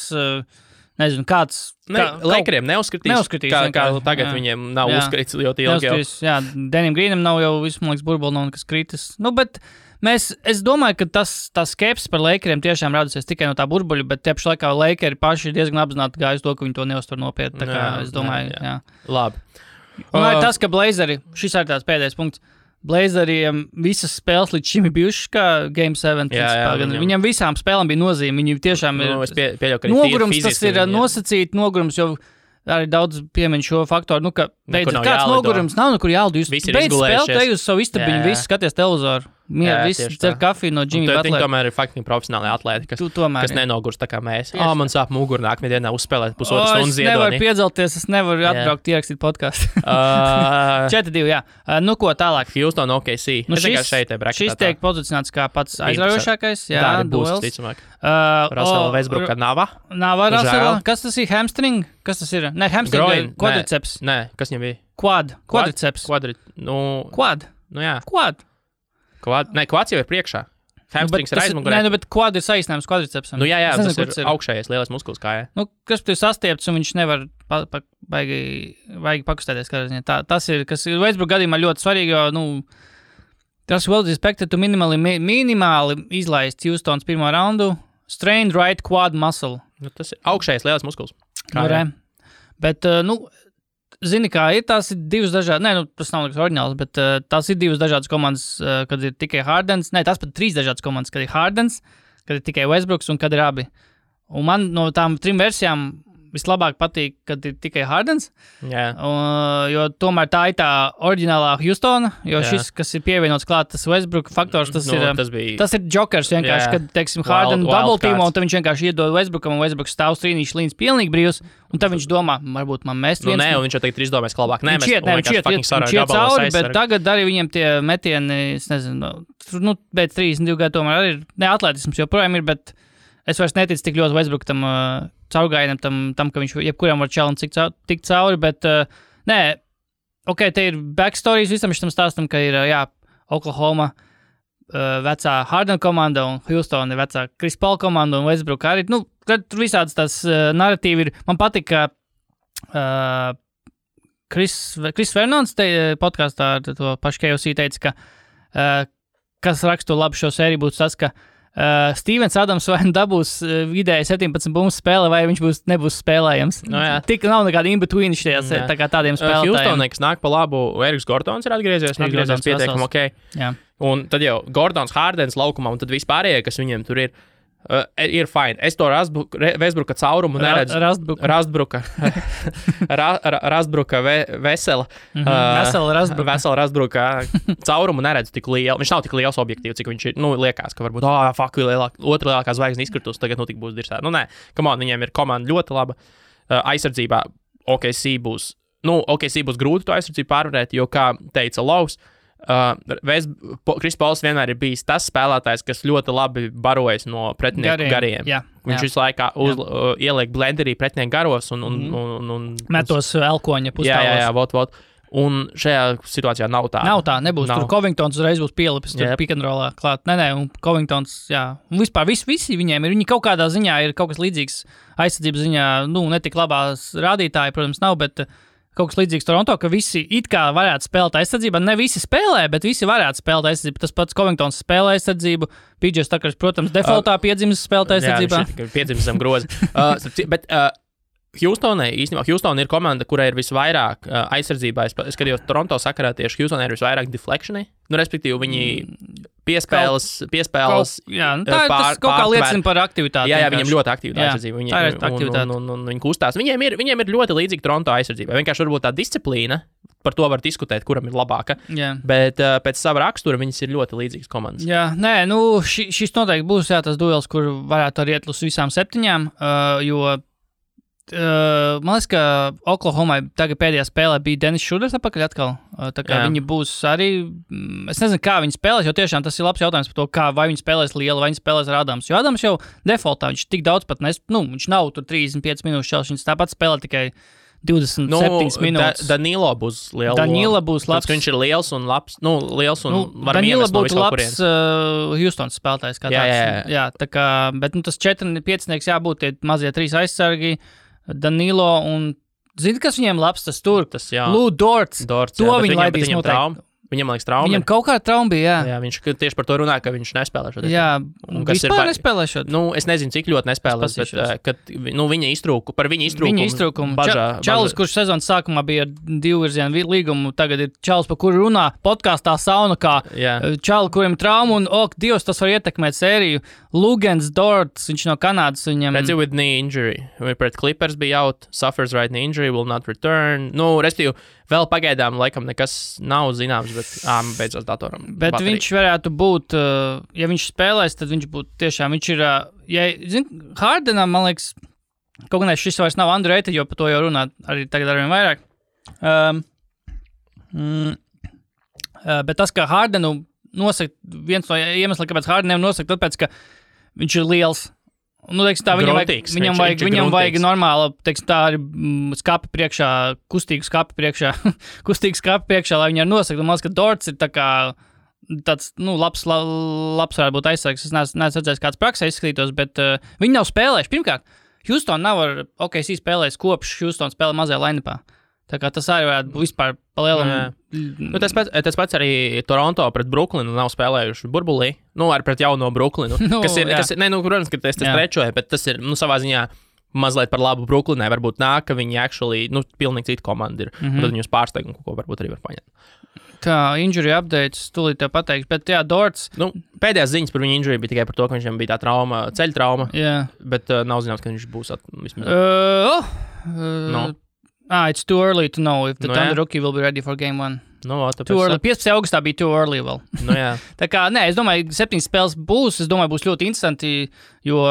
nezinu, kāds... Lakeriem neuzskatīs, kā tagad viņiem nav uzskatīts ļoti ilgi jau. Jā, Denim Greenam nav jau visu, man liekas, burbuli nav nekas kritis. Bet es domāju, ka tas skepsis par Lakeriem tiešām radusies tikai no tā burbuļa, bet tieši laikā Lakeri paši ir diezgan apzināti gājuši to, ka viņi to neuztver nopietni. Tā kā es domāju, jā. Labi. Un arī tas, ka Blazeri, šis ir tāds pēdējais punkts, Blazeriem visas spēles līdz šim ir bijušas kā Game 7. Viņam visām spēlēm bija nozīme. Viņi tiešām ir nogurums, tas ir nosacīt nogurums, jo arī daudz piemin šo faktoru, ka beidzot kāds nogurums nav, kur jālido. Jūs beidz spēlēt, ej uz savu istabiņu, visi skaties televizoru. Visi cer kafiju no Jimmy Butlera. Viņi tomēr ir faktiski profesionāli atlēti, kas nenogurs tā kā mēs. Man sāp muguru nākamajā dienā uzspēlēt pusotru stundu ziedoni. Es nevaru piedzelties, es nevaru atbraukt ierakstīt podcastu. 4-2, jā. Nu ko, tālāk. Houston OKC. Šis tiek pozicionēts kā pats aizraujošākais. Jā, duels. Russell Westbrookā Nava. Russell. Kas tas ir? Hamstring? Kas tas ir? Ne, hamstring, quadriceps. Nē, kas viņam bija? Quadriceps. Quad? Nu jā. Quads jau ir priekšā. Hamstrings ir aizmugurē. Nē, bet quad ir saīsinājums quadricepsam. Nu jā, tas ir augšējais lielais muskulis kājā. Nu, kas tur sastiepts un viņš nevar baigi pakustēties. Tas ir, kas ir Westbrook gadījumā ļoti svarīgi, jo, tas well expected to minimāli izlaist Houstons pirmo raundu. Strained right quad muscle. Tas ir augšējais lielais muskulis. Bet, zini, kā ir, tās ir divas dažādas, tas nav nekas oriģināls, bet tās ir divas dažādas komandas, kad ir tikai Hardens, tās pat 3 dažādas komandas, kad ir Hardens, kad ir tikai Westbrooks un kad ir abi. Un man no tām 3 versijām vislabāk patīk, kad ir tikai Hardens, jo tomēr tā ir tā oriģinālā Houstona, jo šis, kas ir pievienots klāt, tas Westbrook faktors, tas ir jokers vienkārši, kad, teiksim, Harden double teamo, un tad viņš vienkārši iedod Westbrookam, un Westbrooks stāv strīnīši līdz pilnīgi brīvs, un tad viņš domā, varbūt man mest viens. Un viņš jau tagad izdomās labāk. Viņš iet cauri, bet tagad arī viņiem tie metieni, es nezinu, pēc 32 gadu tomēr arī ir, atletisms joprojām ir, bet es vairs neticu tik ļoti Westbrook tam caurgājienam, tam, ka viņš jebkuram var challenge tikt cauri, bet te ir backstories visam šitam stāstam, ka ir, Oklahoma vecā Harden komanda un Houston ir vecā Chris Paul komanda un Westbrook arī. Tur visādas tās narratīvi ir. Man patīk, ka Chris Fernands podkastā ar to pašu KOC teica, ka kas rakstu labi šo sēriju būtu tas, ka Stevens Adams vai dabūs vidēji 17 bumbas spēle, vai viņš nebūs spēlējams. Tik nav nekāda in-between šajās tā kā tādiem spēlētājiem. Houstonai, kas nāk pa labu, Eriks Gordons ir atgriezies pietiekami ok. Un tad jau Gordons, Hardens laukumā, un tad vispārējie, kas viņiem tur ir fine. Es to Westbrooka caurumu neredzu. Rastbruka vesela. Vesela Rastbruka caurumu neredzu tik lielu. Viņš nav tik liels objektīvs, cik viņš ir. Liekas, ka varbūt, otra lielākā zvaigzne izkritus, tagad tik būs dirsēta. Nē, viņiem ir komanda ļoti laba. Aizsardzībā OKC būs grūti to aizsardzību pārvarēt, jo, kā teica Laus, Chris Pauls vienmēr ir bijis tas spēlētājs, kas ļoti labi barojas no pretinieku gariem. Viņš visu laiku ieliek blenderī pretinieku garos un metos elkoņa pustāvos. Un šajā situācijā nav tā. Nebūs. Tur Covingtons uzreiz būs pielipis pick and rollā klāt. Un Covingtons, un vispār visi viņiem ir, viņi kaut kādā ziņā ir kaut kas līdzīgs aizsardzības ziņā, netik labās rādītāji, protams, nav, bet kaut kas līdzīgs Toronto, ka visi it kā varētu spēlēt aizsardzībā. Ne visi spēlē, bet visi varētu spēlēt aizsardzību. Tas pats Covingtons spēlē aizsardzību. PJ Tuckers, protams, defaultā piedzimis spēlēt aizsardzībā. Piedzimis zem groza. Bet Houstonai ir komanda, kurai ir visvairāk aizsardzībā. Es skatījos Toronto sakarā tieši Houstonai ir visvairāk deflectioni. Respektīvi, viņi piespēles. Tas kaut kā liecina par aktivitāti. Jā, viņiem ļoti aktīva aizsardzība. Tā ir aktivitāte. Un viņi kustās. Viņiem ir ļoti līdzīga Toronto aizsardzībai. Vienkārši varbūt tā disciplīna, par to var diskutēt, kuram ir labāka. Bet pēc sava rakstura viņas ir ļoti līdzīgas komandas. Šis noteikti būs tas duels, kur varētu arī iet uz visām 7, jo Man liekas, ka Oklahomai tagad pēdējā spēlē bija Dennis Šuders atpakaļ atkal. Tā kā viņi būs arī, es nezinu, kā viņi spēlēs, jo tiešām tas ir labs jautājums par to, vai viņi spēlēs liela, vai viņi spēlēs ar Adams. Jo Adams jau defaultā, viņš tik daudz pat viņš nav tur 35 minūšu čels, viņš tāpat spēlē tikai 27 minūtes. Danilo būs liela. Danilo būs labs. Viņš ir liels un labs. Liels un var Danilo iemest no būtu labs Houstons spēlētājs kā tāds. Jā, tā kā, bet tas 4-5 jābūt tie mazie 3 aizsargi, Danilo un, zini, kas viņiem labs, tas tur? Lou Dorts. To viņi laidīs noteikti. Viņam, liekas, trauma. Viņam kaut kāda trauma bija, jā. Viņš tieši par to runāja, ka viņš nespēlē šodien. Jā, vispār nespēlē šodien. Es nezinu, cik ļoti nespēlēs, bet kad viņa iztrūkumu bažā. Čalis, kurš sezonas sākumā bija ar 2 virzienu līgumu, tagad ir čalis, par kuru runā podkāstā sauna, kā čali, kuriem trauma, un, Dievs, tas var ietekmēt sēriju. Lugens Dorts, viņš no Kanādas, viņam... Redzi with knee injury. Pret Clippers bija out, suffers right knee injury, will not return. Restīvi, vēl pagaidām laikam nekas nav zināms, bet beidzot datoram. Bet baterija. Viņš varētu būt, ja viņš spēlēs, tad viņš būtu tiešām, viņš ir, Hardenam, man liekas, kaut gan šis vairs nav underrated, jo par to jau runāt arī tagad arvien vairāk. Bet tas, ka Hardenu nosaka, viens no iemesliem, kāpēc Hardenam nosaka, tāpēc, ka viņš ir liels. Teiksim tā, viņam vajag normāla, teiksim tā, arī skapi priekšā, kustīgu skapi priekšā, lai viņi arī nosaka. Man liekas, ka Dorts ir tā kā tāds, labs varētu būt aizsargs. Es neesmu redzējis, kāds praksē izskatītos, bet viņi nav spēlējuši. Pirmkārt, Houston nav ar OKC spēlējis kopš Houston spēlē mazajā line-upā. Tā kā tas arī varētu būt vispār palielam. Tas pats arī Toronto pret Brooklynu nav spēlējuši burbulī. Arī pret jauno Brooklynu. Protams, ka tas trečoja, bet tas ir, savā ziņā mazliet par labu Brooklynai. Varbūt nāk, ka viņi actually, pilnīgi cita komanda ir. Un tad viņus pārsteigumu, ko varbūt arī var paņemt. Tā, injury updates, tūlīt tev pateiks, bet Dorts... Pēdējās ziņas par viņu injury bija tikai par to, ka viņam bija tā trauma, ceļa trauma. Bet nav zināms, ka viņš būs vismaz... It's too early to know if the Thunder rookie will be ready for game 1. Too early. 15. augustā bija too early vēl. Tā kā, es domāju, 7 spēles būs, būs ļoti interesanti, jo,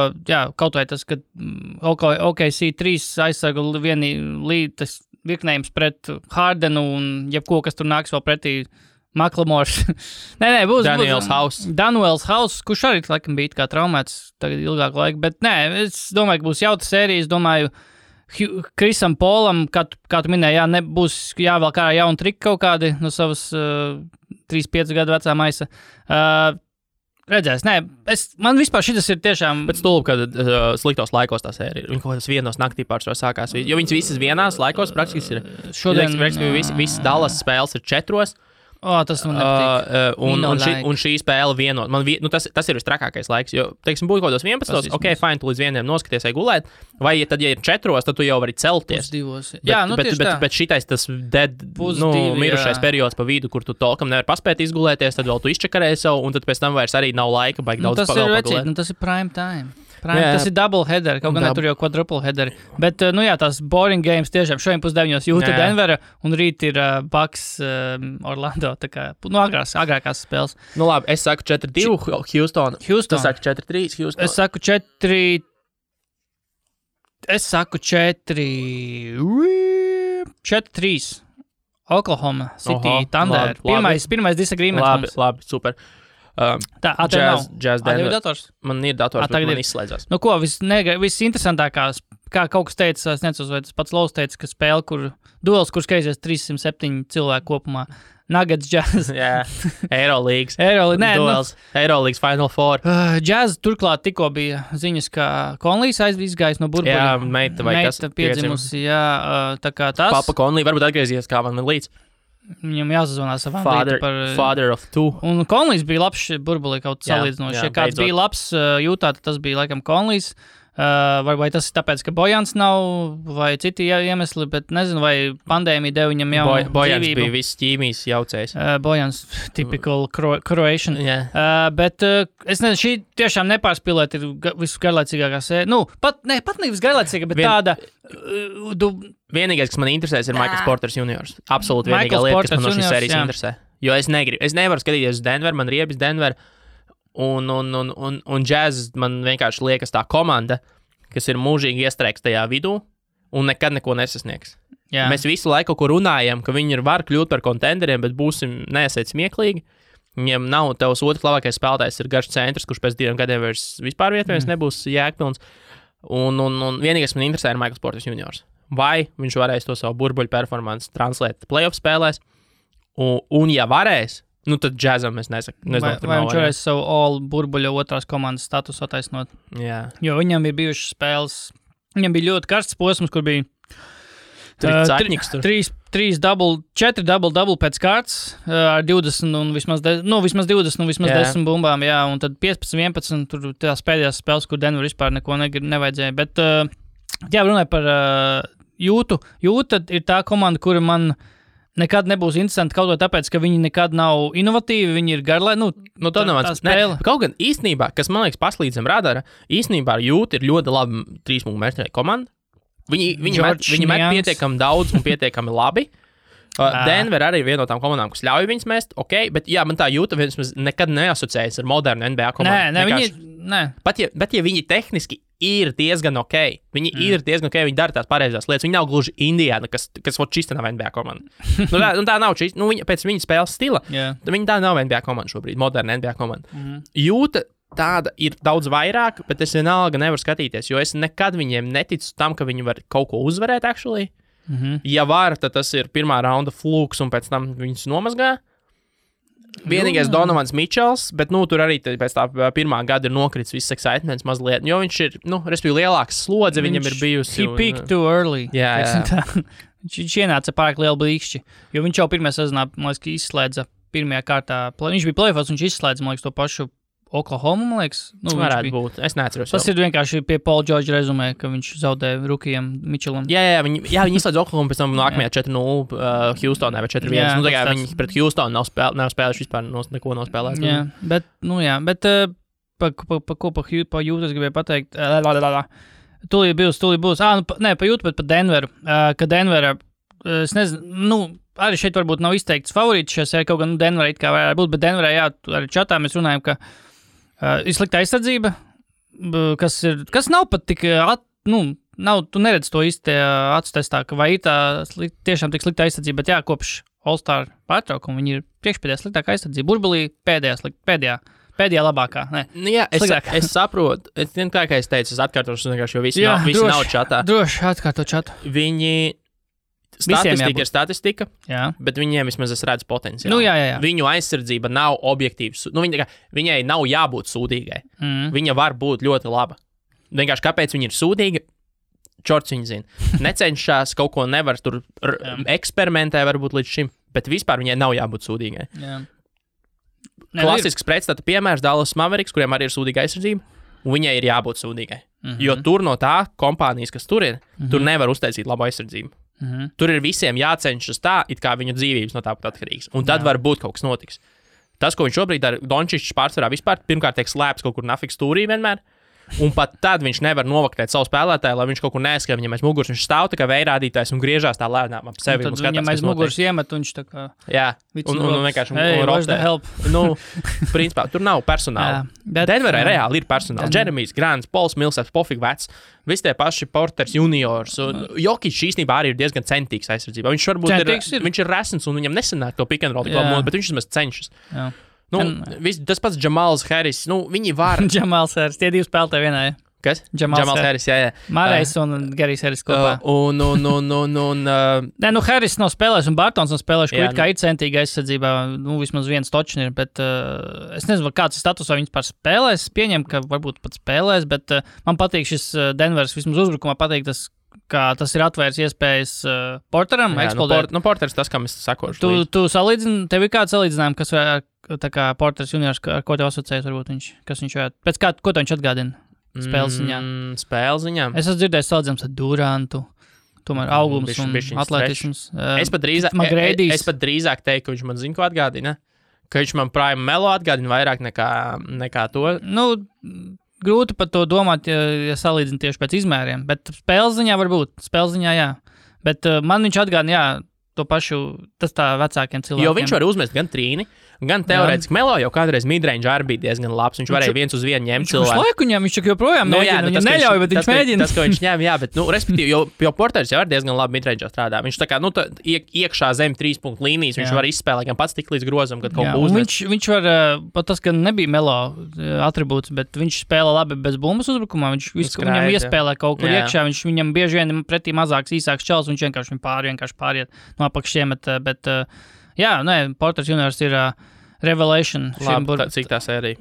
kaut vai tas, ka OKC 3 aizsargu tas virknējums pret Hardenu un jebko, kas tur nāks vēl pretī Maklamors. Būs Danuels House, kurš arī, laikam, bija kā traumēts tagad ilgāku laiku, bet es domāju, ka būs jauta sērija, es domāju, Krisam Polam, kā tu minēji, nebūs jāvēl kā jauna trika kaut kādi no savas 3-5 gadu vecā maisa. Redzēs, man vispār šitas ir tiešām... Bet stulbi, kad sliktos laikos tā sērija. Viņi kaut kādas vienos naktī pārsvarā sākās. Jo viņas visas vienās laikos praktiski ir... Šodien... Visas Dallas spēles ir 4. Tas man nepatīk. Un šī spēle vienot. Tas ir vistrakākais laiks, jo, teiksim, būtu kaut kādos 11, fine, tu līdz 1 noskaties vai gulēt, vai tad, ja ir 4, tad tu jau vari celties. Bet šitais tas mirušais periods pa vidu, kur tu tolkam nevar paspēt izgulēties, tad vēl tu izčakarēji sev, un tad pēc tam vairs arī nav laika, baigi daudz pagulēt. Tas ir prime time. Tas ir double header, kaut gan tur jau quadruple header. Bet, tās boring games tiešām šodien 9:30 Jūta Denvera un rīt ir Bucks Orlando, tā kā, agrākās spēles. Labi, es saku 4-2 Houston. Tu saki 4-3 Houston. Es saku 4-3 Oklahoma City Thunder. Pirmais disagreements. Labi, super. Jazz Denver. Man ir dators, bet man izslēdzās. Visinteresantākās, kā kaut kas teica, es necos, vai tas pats Laus teica, ka spēle, duels, kur skaisies 307 cilvēku kopumā. Nuggets, Jazz. Eurolīgas. Duels. Eurolīgas Final Four. Jazz turklāt tikko bija ziņas, ka Conleys izgājis no burbuļa. Meita piedzimusi, tā kā tas. Papa Conley varbūt atgriezies kā man līdz. Viņam jāsazvanās savām Father of two. Un Conleys bija labs burbulī kaut salīdzinoši. Ja kāds bija labs Jūtā, tad tas bija laikam Conleys. Vai tas ir tāpēc, ka Bojans nav, vai citi iemesli, bet nezinu, vai pandēmija deva viņam jau Bojans dzīvību. bija viss ķīmijas jaucējs. Bojans, typical Croatian. Yeah. Bet es nezinu, šī tiešām nepārspīlēt ir visgarlaicīgākā sērija. Pat ne visgarlaicīgā, bet tāda... Vienīgais, kas man interesēs, ir Michaels Porters juniors. Absolūti vienīgā lieta, kas man no šīs sērijas interesē. Jo es nevaru skatīties uz Denver, man riebis Denver. Un Jazz man vienkārši liekas tā komanda, kas ir mūžīgi iestrēgs tajā vidū, un nekad neko nesasniegs. Jā. Mēs visu laiku kaut ko runājam, ka viņi var kļūt par kontenderiem, bet būsim neesiet smieklīgi. Viņiem nav tavs otrs labākais spēlētājs, ir garš centrs, kurš pēc 2 gadiem vairs vispār vietējais nebūs jēgpilns. Un vienīgais man interesē ir Michaels Porters juniors. Vai viņš varēs to savu burbuļu performanci translēt playoff spēlēs? Un ja varēs, nu tad džezam es nesaku. Vai viņš varēs savu all burbuļa otrās komandas statusu attaisnot? Jā. Jo viņam ir bijušas spēles, viņam bija ļoti karsts posms, kur bija 4 double pēc kārtas ar 20 un vismaz 20 un vismaz 10 bumbām, jā, un tad 15-11 tur tās pēdējās spēles, kur Denver vispār neko nevajadzēja, bet jā, runāju par Jūtu. Jūta ir tā komanda, kura man nekad nebūs interesanti kaut ko tāpēc, ka viņi nekad nav inovatīvi, viņi ir garlai, tā nav tā spēle. Kaut gan īstenībā, kas man liekas paslīd zem radara, īstenībā ar Jūtu ir ļoti labi 3 mērķēja komanda. Viņi met pietiekami daudz un pietiekami labi. Denver arī ir viena no tām komandām, kas ļauj viņus mest, bet jā, man tā Jūta nekad neasociējas ar modernu NBA komandu. Bet ja viņi tehniski ir diezgan viņi ir diezgan viņi dara tās pareizās lietas, viņi nav gluži Indiana, kas čista nav NBA komanda. Tā nav čista, pēc viņa spēles stila, viņi tā nav NBA komanda šobrīd, moderna NBA komanda. Jūta tāda ir daudz vairāk, bet es vienalga nevaru skatīties, jo es nekad viņiem neticu tam, ka viņi var kaut ko uzvarēt, actually. Ja var, tad tas ir pirmā raunda flūks, un pēc tam viņus nomazgā. Vienīgais Donovans Mitchells, bet tur arī pēc tā pirmā gada ir nokritis viss excitements mazliet, jo viņš ir, respektīvi, lielāks slodze viņam ir bijusi. He peaked too early. Jā. Viņš ienāca pārāk lielu blīkšķi, jo viņš jau pirmajā sezonā, man liekas, izslēdza pirmajā kārtā. Viņš bija playoffs, viņš izslēdza, man liekas, to pašu Oklahoma, man liekas. Varētu būt. Es neatceros. Tas ir vienkārši pie Paul George rezumē, ka viņš zaudēja rukijam Mitchellam. Jā, viņi izslēdz Oklahoma, pēc tam nākamajā 4-0 Houstonā vai 4-1. Viņi pret Houstonu nav spēlējuši vispār neko nav spēlējuši. Jā, bet pa Jūtu es gribēju pateikt. Tūlīt būs. Pa Jūtu, bet pa Denveru. Ka Denvera, es nezinu, arī šeit varbūt nav izteikts favorīts šajā sērijā, kaut gan Denverā it kā varētu būt, bet Denverā, jā, arī čatā mēs runājam, ka ir slikta aizsardzība, kas nav pat tik, tu neredz to īsti atstestā, ka vai ir tā tiešām tik slikta aizsardzība, bet jā, kopš All-Star pārtraukuma viņi ir priekšpēdējā sliktākā aizsardzība. Burbulī pēdējā labākā. Jā, es saprotu. Kā es teicu, es atkārtošu, jo visi nav čatā. Droši atkārto čatu. Viņi statistika ir statistika, bet viņiem vismaz es redzu potenciālu. Jā. Viņu aizsardzība nav objektīvs. Viņai nav jābūt sūdīgai. Viņa var būt ļoti laba. Vienkārši kāpēc viņa ir sūdīga? Čorts viņa zina. Necenšas, kaut ko nevar tur eksperimentē varbūt līdz šim, bet vispār viņai nav jābūt sūdīgai. Klasisks pretstata piemērs Dallas Mavericks, kuriem arī ir sūdīga aizsardzība, un viņai ir jābūt sūdīgai. Jo tur no tā kompānijas, kas tur ir, tur nevar uztaisīt labu aizsardzību. Tur ir visiem jācenšas tā, it kā viņu dzīvības no tā pat atkarīgs. Un tad varbūt kaut kas notiks. Tas, ko viņš šobrīd dara, Dončičs pārsvarā vispār, pirmkārt tiek slēpts kaut kur nafiks stūrī vienmēr. Un pat tad viņš nevar novaktēt savu spēlētāju, lai viņš kaut kur neaizskrien viņam aiz muguras. Viņš stāv tā kā vējrādītājs un griežās tā lēnām ap sevi. Un viņam aiz muguras iemet, un viņš tā kā... Jā, un vienkārši rotē. Principā, tur nav personāla. Denverā reāli ir personāls. Jeremijs Grants, Pols Millsaps, pofīgi vecs. Visi tie paši Porters juniors. Jokic īstenībā arī ir diezgan centīgs aizsardzībā. Viņš varbūt viņš ir resns un viņam nesanāk to pick and roll, bet viņš vismaz cenšas. Tas pats Jamals Harris, viņi var. Jamals Harris, tie divi spēlētāji vienā. Kas? Jamals Harris, jā. Marais un Garijs Harris kopā. Harris nav spēlējis un Bartons nav spēlējis, kur it kā ir centīga aizsardzībā, vismaz viens točni ir, bet es nezinu, kāds ir status, vai viņas pār spēlēs, pieņem, ka varbūt pat spēlēs, bet man patīk šis Denvers, vismaz uzbrukumā patīk tas, kā tas ir atvērs iespējas Porteram eksplodēt. Porters tas, kam es sakošu. Tu salīdzini, tev ir kāds salīdzinājumi, kas tā kā Porters juniors, ar ko tev asociējas varbūt viņš, kas viņš varētu, pēc kā, ko tev viņš atgādina spēles ziņā? Es esmu dzirdējis salīdzinājums ar Durantu, tomēr augums un atletisms. Es pat drīzāk teiktu, ka viņš man zina, ko atgādina, ka viņš man Prime Melo atgādina vairāk nekā to. Grūti par to domāt, ja salīdzina tieši pēc izmēriem, bet spēles ziņā varbūt, jā. Bet man viņš atgādina, to pašu, tas tā vecākiem cilvēkiem. Jo viņš var uzmest gan trīni, gan teorētiski Melo jau kādreiz midrange arī bija diezgan labs. Viņš varēja 1-1 ņemt cilvēku. Viņš laiku ņem, viņš joprojām mēģina. Viņam neļauj, bet viņš mēģina. Tas, ko viņš ņem, jā, bet, respektīvi, jo Porteris jau ir diezgan labi midrange strādā. Viņš tā kā, iekšā zem 3 punktu līnijas, viņš var izspēlēt gan pats tik līdz grozam, kad kaut ko uzmet. Viņš var, pat tas, ka nebija Melo atribūts, bet viņš spēlē labi bez bumbas uzbrukumā. Viņam iespēlē kaut kur iekšā, viņam bieži vien pretī mazāks, īsāks čels, viņš vienkārši pāriet no apakšiem, bet jā, Porteris juniors ir revelation. Labi, cik tā sērija?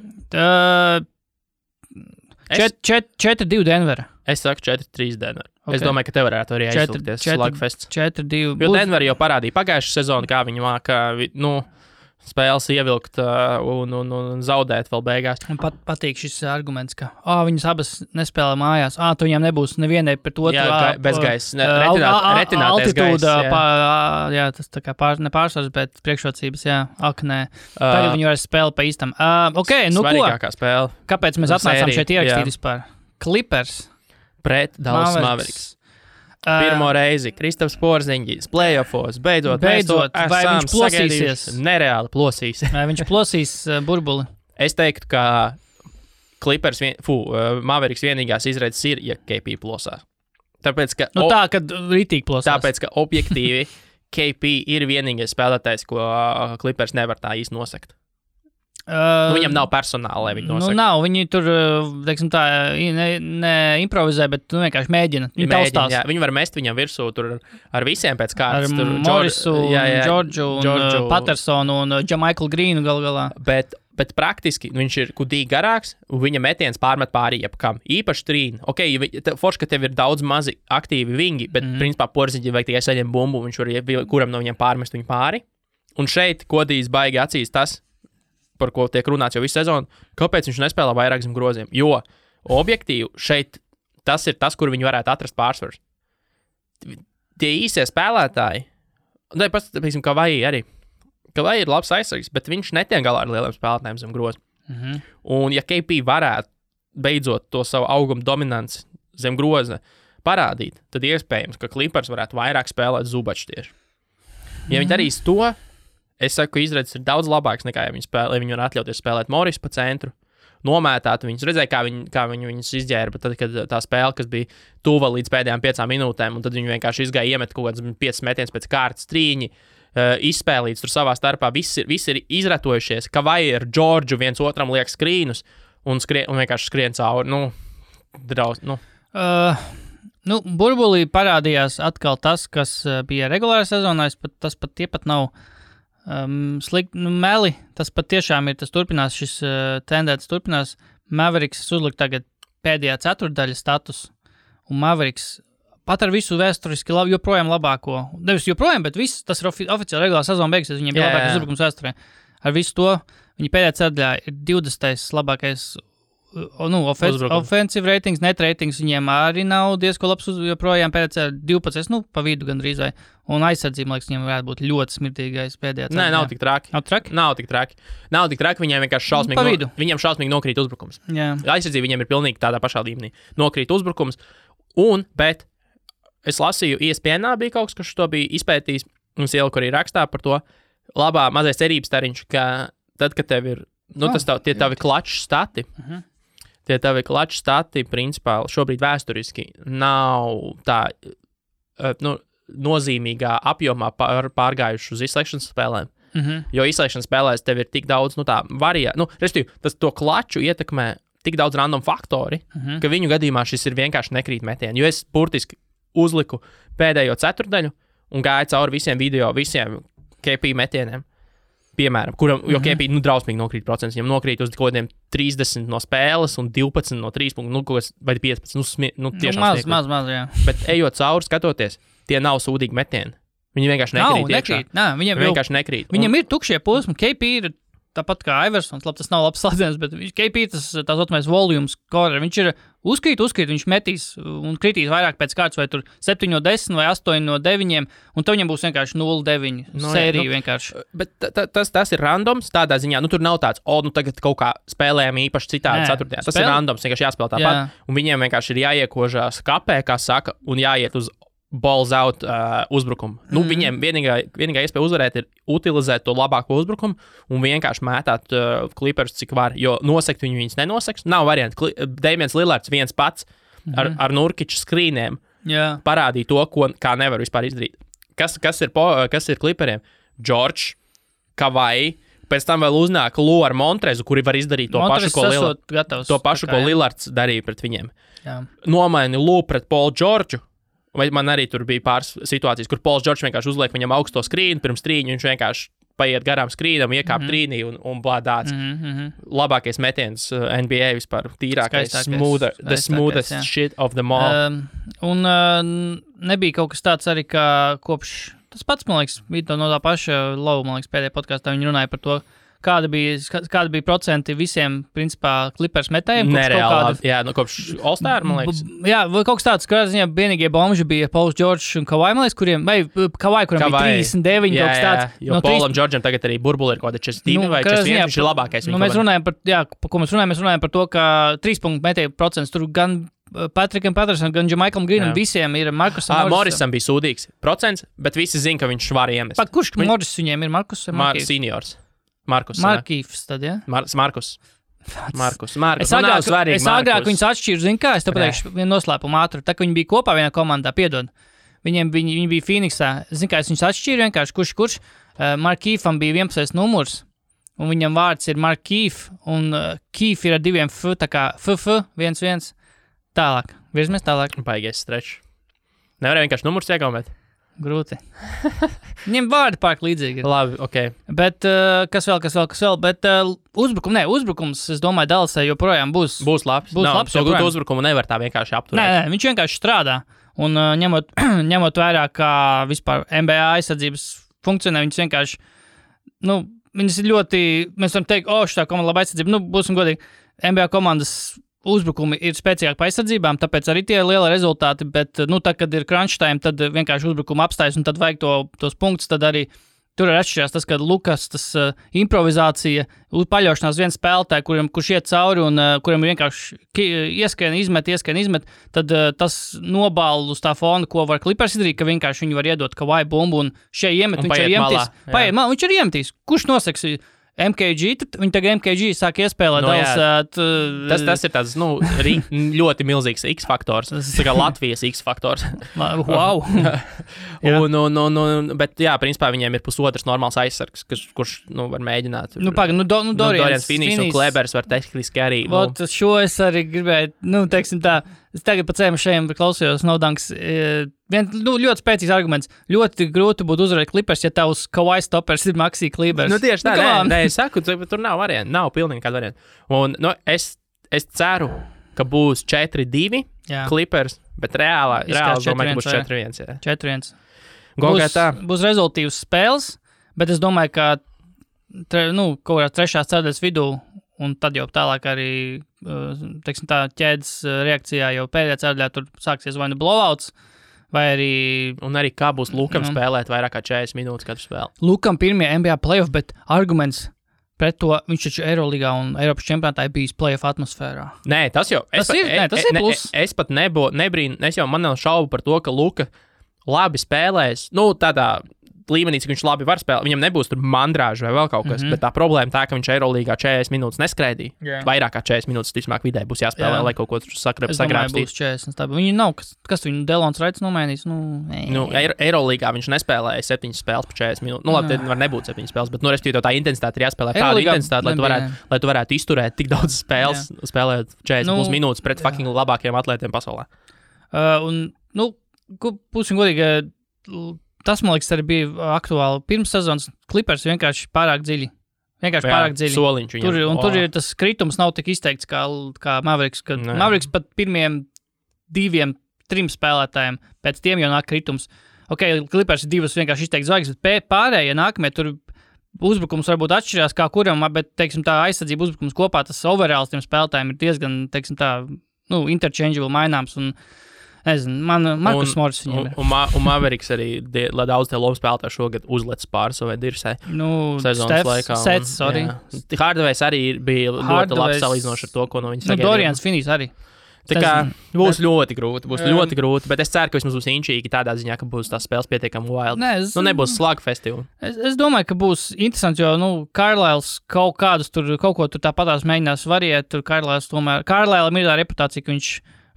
4-2 Denvera. Es saku 4-3 Denver. Okay. Es domāju, ka tev varētu arī aizsūkties slugfests. 4-2. Jo Denver jau parādīja pagājušu sezonu, kā viņi māka, spēles ievilkt un zaudēt vēl beigās. Man patīk šis arguments, ka viņas abas nespēlē mājās. Tu viņām nebūs nevienai pret otru. Jā, bezgaisa. Retinātais altitūda, jā, tas tā kā nepārsvars, bet priekšrocības, jā. Nē. Tagad viņi varēs spēlēt pa īstam. Svarīgākā spēle. Kāpēc mēs atnācām šeit ierakstīt vispār? Clippers. Pret Dallas Mavericks. Pirmo reizi Kristaps Porziņģis playoffos, beidzot vai viņš plosīsies? Nereāli plosīs. Vai viņš plosīs burbuli? Es teiktu, ka Clippers, Mavericks vienīgās izredzes ir, ja KP plosās. Tāpēc, ka tā, kad ritīgi plosās. Tāpēc, ka objektīvi KP ir vienīgais spēlētājs, ko Clippers nevar tā īsti nosekt. Viņam nav personāla, lai viņi nosaka. Nav, viņi tur, teiksim tā, neimprovizē, bet vienkārši mēģina. Viņi var mest viņam virsū tur ar visiem pēc kārtas. Ar Morrisu, Džordžu, Pattersonu un Jamaiklu Grīnu gal galā. Bet praktiski viņš ir kudīgi garāks, un viņa metiens pārmet pāri jebkam. Īpaši trīni. Forši, ka tev ir daudz mazi aktīvi vingi, bet principā Porziņģi vajag tikai saņem bumbu, viņš var kuram no viņiem pārmest viņu pāri. Un šeit kodīs baigi acīs tas, par ko tiek runāts jau visu sezonu, kāpēc viņš nespēlē vairāk zem groziem. Jo objektīvi šeit tas ir tas, kur viņi varētu atrast pārsvars. Tie īsie spēlētāji, piemēram, Kavai arī. Kavai ir labs aizsargs, bet viņš netiek galā ar lieliem spēlētājiem zem groza. Un ja KP varētu beidzot to savu augumu dominanci zem groza parādīt, tad iespējams, ka Clippers varētu vairāk spēlēt Zubačs tieši. Ja viņi darīs to, es saku, ka izredzes ir daudz labāks nekā, ja viņi var atļauties spēlēt Morris pa centru, nomētāt viņus. Redzēja, kā viņi viņus izģēra, bet tad, kad tā spēle, kas bija tuva līdz pēdējām 5 minūtēm, un tad viņi vienkārši izgāja iemet kaut kāds 5 metiens pēc kārtas trīņi, izspēlīts tur savā starpā, visi ir izratojušies, ka vai ar Džordžu viens otram liek skrīnus un vienkārši skrien cauri. Burbulī parādījās atkal tas, kas bija regulārā sezonā, tie pat nav slikti, meli, tas pat tiešām ir, tas turpinās, šis tendēts turpinās. Mavericks uzlikt tagad pēdējā ceturtdaļa status, un Mavericks pat ar visu vēsturiski joprojām labāko, nevis joprojām, bet viss, tas ir oficiāli regulārā sezona beigas, viņiem bija labākais uzbrukums vēsturē. Ar visu to, viņi pēdējā ceturtdaļā ir 20. labākais offensive ratings, net ratings viņiem arī nav diezko labs, joprojām pēdējā 12, pa vidu gandrīz vai, un aizsardzība, liekas, viņiem varētu būt ļoti smirtīgais pēdējā ceturtdaļā. Nē, nav tik traki. Nav tik traki, viņiem vienkārši šausmīgi nokrīt uzbrukums. Jā. Aizsardzība viņiem ir pilnīgi tādā pašā līmenī. Nokrīt uzbrukums, bet es lasīju, ESPN bija kaut kas to bija izpētījis, mums ieliku arī rakstā par to labā mazais cerības tariņš, ka tad, kad tev ir, tie tavi klaču stati, tie tavi klaču stati, principā, šobrīd vēsturiski nav tā, nozīmīgā apjomā pārgājuši uz izslēgšanas spēlēm. Jo izslēgšanas spēlēs tev ir tik daudz, respektīvi, tas to klaču ietekmē tik daudz random faktori, ka viņu gadījumā šis ir vienkārši nekrīt metieni. Jo es burtiski uzliku pēdējo ceturtdaļu un gāju cauri visiem KP metieniem. Piemēram, jo KP drausmīgi nokrīt procents, viņam nokrīt uz kaut kādiem 30 no spēles un 12 no 3 punktu, vai 15, tiešām maz, jā. Bet ejot cauri, skatoties, tie nav sūdīgi metieni. Viņi vienkārši nekrīt. Viņiem vienkārši nekrīt. Viņam ir tukšie posmi, KP ir tāpat kā Iversons, labi, tas nav labs slēdziens, bet KP tas otrais volumes scorer, viņš ir uzkrīt, viņš metīs un kritīs vairāk pēc kārtas, vai tur 7-10 vai 8-9, un tad viņam būs vienkārši 0-9 sērija vienkārši. Bet tas ir randoms tādā ziņā, tur nav tāds, tagad kaut kā spēlējam īpaši citādi ceturtajā. Tas ir randoms, vienkārši jāspēlē tāpat, un viņiem vienkārši ir jāiekožās kapē, kā saka, un jāiet uz balls out uzbrukumu. Nu, viņiem vienīgā iespēja uzvarēt ir utilizēt to labāko uzbrukumu un vienkārši mētāt Clippers, cik var, jo nosekt viņus nenoseks. Nav varianti. Damians Lillards viens pats ar Nurkiču skrīniem parādīja to, kā nevar vispār izdarīt. Kas ir Clipperiem? George, Kawhi, pēc tam vēl uznāk Lu ar Montrezu, kuri var izdarīt to pašu, ko Lillards darīja pret viņiem. Nomaini Lu pret Paulu Georgeu. Vai man arī tur bija pāris situācijas, kur Pauls Džordžs vienkārši uzliek viņam augsto skrīnu, pirms trīņu viņš vienkārši paiet garām skrīnam, iekāp trīnī un blādāts. Labākais metiens NBA vispār, tīrākais, the smoothest shit of them all. Un nebija kaut kas tāds arī, kā kopš, tas pats, man liekas, bija no tā paša Lau, man liekas, pēdējā podkāstā viņi runāja par to, kāda bija procenti visiem, principā, Clippers metējiem. Nereāli, kopš All-Star, man liekas. Jā, vai kaut kas tāds, kā ziņā vienīgie bomži bija Pauls Džordžs un Kawhi, man liekas, kuram bija 39, kaut kas tāds. Jo Paulam Džordžam tagad arī burbuli ir kaut kāda 42 vai 41, viņš ir labākais. Mēs runājam par to, ka 3 punktu metēju procents tur gan Patrikam Pattersonam, gan Jamaikam Greenam, visiem ir Markusam Morrisam bija sūdīgs procents, bet visi zina, ka viņš var iemest. Kurš Morris viņiem ir? Markus vai Markīvs? Seniors. Markus. Markīvs tad, ja? Markus. Es agrāk viņus atšķiru, zinu kā, es te pateikšu vienu noslēpumu ātru. Tā, ka viņi bija kopā vienā komandā, piedod. Viņi bija Phoenixā. Zinu kā, es viņus atšķiru vienkārši, kurš. Markīvam bija 11. numurs, un viņam vārds ir Markīv, un Kīv ir ar 2 F, tā kā FF, 1-1. Tālāk. Virzamies tālāk. Baigais strečs. Nevarēja vienkārši numurs iegaumēt. Grūti. Viņiem vārdi pārāk līdzīgi. Labi, ok. Bet kas vēl? Bet uzbrukums, es domāju, Dallasai joprojām būs labs. So gūt uzbrukumu nevar tā vienkārši apturēt. Nē, viņš vienkārši strādā. Un ņemot vērā, kā vispār NBA aizsardzības funkcionē, viņas vienkārši, viņas ir ļoti, mēs varam teikt, šitā komanda laba aizsardzība. Būsim godīgi, NBA komandas uzbrukumi ir spēcīgāki pa aizsardzībām, tāpēc arī tie ir lieli rezultāti, bet, tad, kad ir crunch time, tad vienkārši uzbrukuma apstājas un tad vajag tos punktus, tad arī tur ir atšķirās tas, ka Lukas, tas improvizācija, paļaušanās viens spēlētāji, kurš iet cauri un kuram ir vienkārši ieskrien, izmet, tad tas nobāla uz tā fona, ko var Clippers izdarīt, ka vienkārši viņi var iedot Kawhi bumbu un šie iemet, viņš ir iemetīs. Viņš ir iemetīs. Kurš noseks? MKG, viņi tagad MKG sāk iespēlēt Tas ir tāds, ļoti milzīgs X-faktors. Tas ir kā Latvijas X-faktors. Wow! Bet, principā viņiem ir pusotrs normāls aizsargs, kurš, var mēģināt. Dorians Finis un Klebers var tehniski arī. Šo es arī gribēju, teiksim tā, es tagad pa cēmu šajiem klausījos Naudanks. Ļoti spēcīgs arguments. Ļoti grūti būtu uzvarēt Clippers, ja tavs Kawhi stoppers ir Maxi Klebers. Tieši tā, es saku, tur nav variantu, nav pilnīgi kāda varianta. Un es ceru, ka būs 4-2 Clippers, bet reāli domāju, ka būs 4-1. 4-1. Būs rezultīvas spēles, bet es domāju, ka kaut kādā trešās ceturdaļas vidū, un tad jau tālāk arī, teiksim tā, ķēdes reakcijā jau pēdējā ceturdaļā tur sāksies vai blowouts, vai arī... Un arī kā būs Lukam spēlēt vairāk kā 40 minūtes katru spēli. Lukam pirmie NBA playoff, bet arguments pret to, viņš taču Eiroligā un Eiropas čempionātā ir bijis playoff atmosfērā. Nē, tas jau... Tas ir plus. Es pat nebrīnu, man nav šaubu par to, ka Luka labi spēlēs, tādā... līmenī, cik viņš labi var spēlēt. Viņam nebūs tur mandrāža vai vēl kaut kas, bet tā problēma tā, ka viņš Eirolīgā 40 minūtes neskraidīja. Yeah. Vairāk kā 40 minūtes, ticamāk, vidē būs jāspēlē, lai kaut ko tur sagrābstīt. Viņi nav, kas viņu Delons Raits nomainīs? Eirolīgā viņš nespēlēja 7 spēles pa 40 minūtes. Labi, tad var nebūt 7 spēles, bet, respektīvi, tā intensitāte ir jāspēlē tāda intensitāte, lai tu varētu izturēt tik daudz spēles, spēlēt 40 minūtes pret fucking labākajiem atlētiem pasaulē. Būsim godīgi, tas, man liekas, arī bija aktuāli. Pirms sezonas Clippers vienkārši pārāk dziļi. Pārāk dziļi. Soliņš viņam. Tur ir tas kritums nav tik izteikts kā Mavericks. Mavericks pat pirmiem 2-3 spēlētājiem, pēc tiem jau nāk kritums. Ok, Clippers ir 2 vienkārši izteikts zvaigznes, bet pārējie nākamie tur uzbrukums varbūt atšķirās kā kuram, bet, teiksim, tā aizsardzība uzbrukums kopā, tas overalls tiem spēlētājiem ir diezgan, teiksim, tā, interchangeable maināms un nezinu, Markus Morris viņam ir. Un Mavericks arī, lai daudz tie lomu spēlētāji šogad uzlec pār savai dirsai sezonas laikā. Sets, sorry. Hardways arī bija ļoti labi salīdzinoši ar to, ko no viņas sagaidīja. Dorians Finis arī. Tā kā būs ļoti grūti, bet es ceru, ka vismaz būs inčīgi tādā ziņā, ka būs tās spēles pietiekami wild. Nebūs slug festivāli. Es domāju, ka būs interesanti, jo, Carlisles kaut ko tur tāpatās mēģinās variēt, tur Carlisle'am ir tā reputācija, ka viņš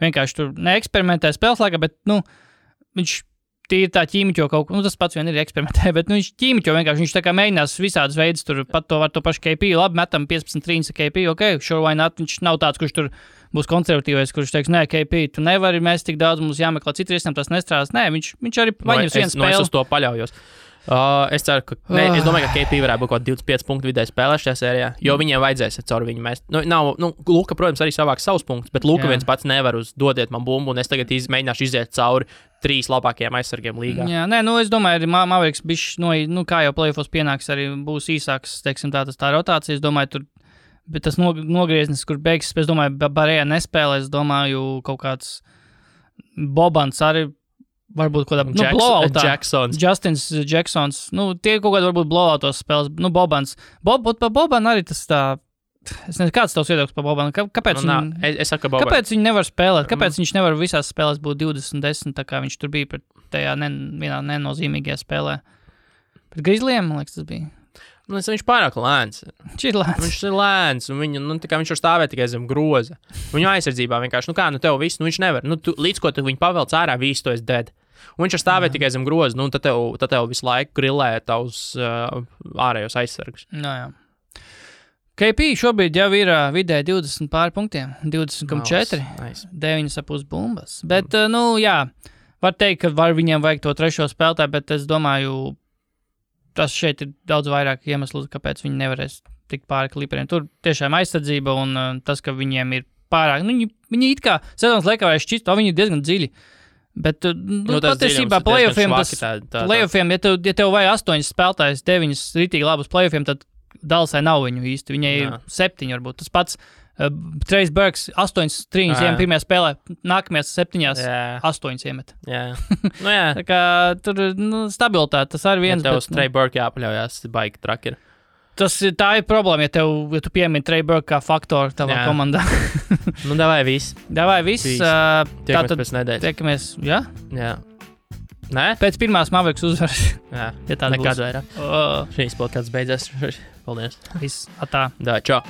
vienkārši tur neeksperimentē spēles laikā, bet, viņš tīri tā ķīmiķo kaut ko, tas pats vien ir eksperimentē, bet, viņš ķīmiķo vienkārši, viņš tā kā mēģinās visādas veidus, tur pat to pašu KP, labi, metam 15 trīņas KP, sure, why not, viņš nav tāds, kurš tur būs konservatīvais, kurš teiks, nē, KP, tu nevari, mēs tik daudz, mums jāmeklē citi risinājumi, tas nestrādās, nē, viņš arī paņems vienu spēli. Es uz to paļaujos. Es ceru, ka, es domāju, ka KP varētu būt kaut 25 punktu vidēji spēlē šajā sērijā, jo viņiem vajadzēs caur viņu mest. Luka, protams, arī savāks savus punktus, bet Luka viens pats nevar dodiet man bumbu, un es tagad mēģināšu iziet cauri 3 labākajiem aizsargiem līgā. Jā, es domāju, arī Mavericks bišķi, kā jau playoffos pienāks, arī būs īsāks, teiksim, tā rotācija, es domāju, tur, bet tas nogrieznis, kur beigas, es domāju, Barējā nespēlē, es domāju, kaut kāds Bobans arī, varbūt kaut kādā blowoutā. Justins Jacksons. Tie kaut kādā varbūt blowoutos spēles. Bobans. Boban arī tas tā... Es nezinu, kāds tavs viedoklis par Bobanu? Kāpēc viņi nevar spēlēt? Kāpēc viņš nevar visās spēlēs būt 20-10, tā kā viņš tur bija pret tajā vienā nenozīmīgajā spēlē? Pret Grizzlyiem, man liekas, tas bija. Viņš pārāk lēns. Viņš ir lēns, un viņš var stāvēt tikai zem groza. Viņu aizsardzībā vienkārši, tev viss, viņš nevar. Līdz ko tu viņu pavelc ārā, visu to esi dead. Un viņš var stāvēt tikai zem groza, tad tev visu laiku grillē tavus ārējos aizsargus. Jā. KP šobrīd jau ir vidēji 20 pāri punktiem, 20,4, 9,5 bumbas. Bet, var teikt, ka viņiem vajag to trešo spēlētāju, bet es domāju, tas šeit ir daudz vairāk iemeslu, kāpēc viņi nevarēs tikt pāri Clipperiem. Tur tiešām aizsardzība un tas, ka viņiem ir pārāk. Viņi it kā sezonas laikā varēs šķist, viņi ir diezgan dziļi. Bet patiesībā playoffiem, ja tev vajag 8 spēlētājs, 9 ritīgi labus playoffiem, tad Dallasai nav viņu īsti. Viņai ir 7 varbūt. Tas pats Trace Burks 8 trīņas iemet pirmajā spēlē, nākamajās 7 8 iemet. Jā. Tā kā tur stabilitāte, tas arī viens. Ja tev uz Trace Burks jāpaļaujās, baigi traki ir. Tā ir problēma, ja tu piemini Trace Burks kā faktoru tavā komandā. Davai viss. Tiekamies pēc nedēļas. Tiekamies, jā? Jā. Nē? Pēc pirmās Mavericks uzvaras. Jā, ja nekad vairāk. Šīs podcasts beidzās. Paldies. Viss, atā. Čau.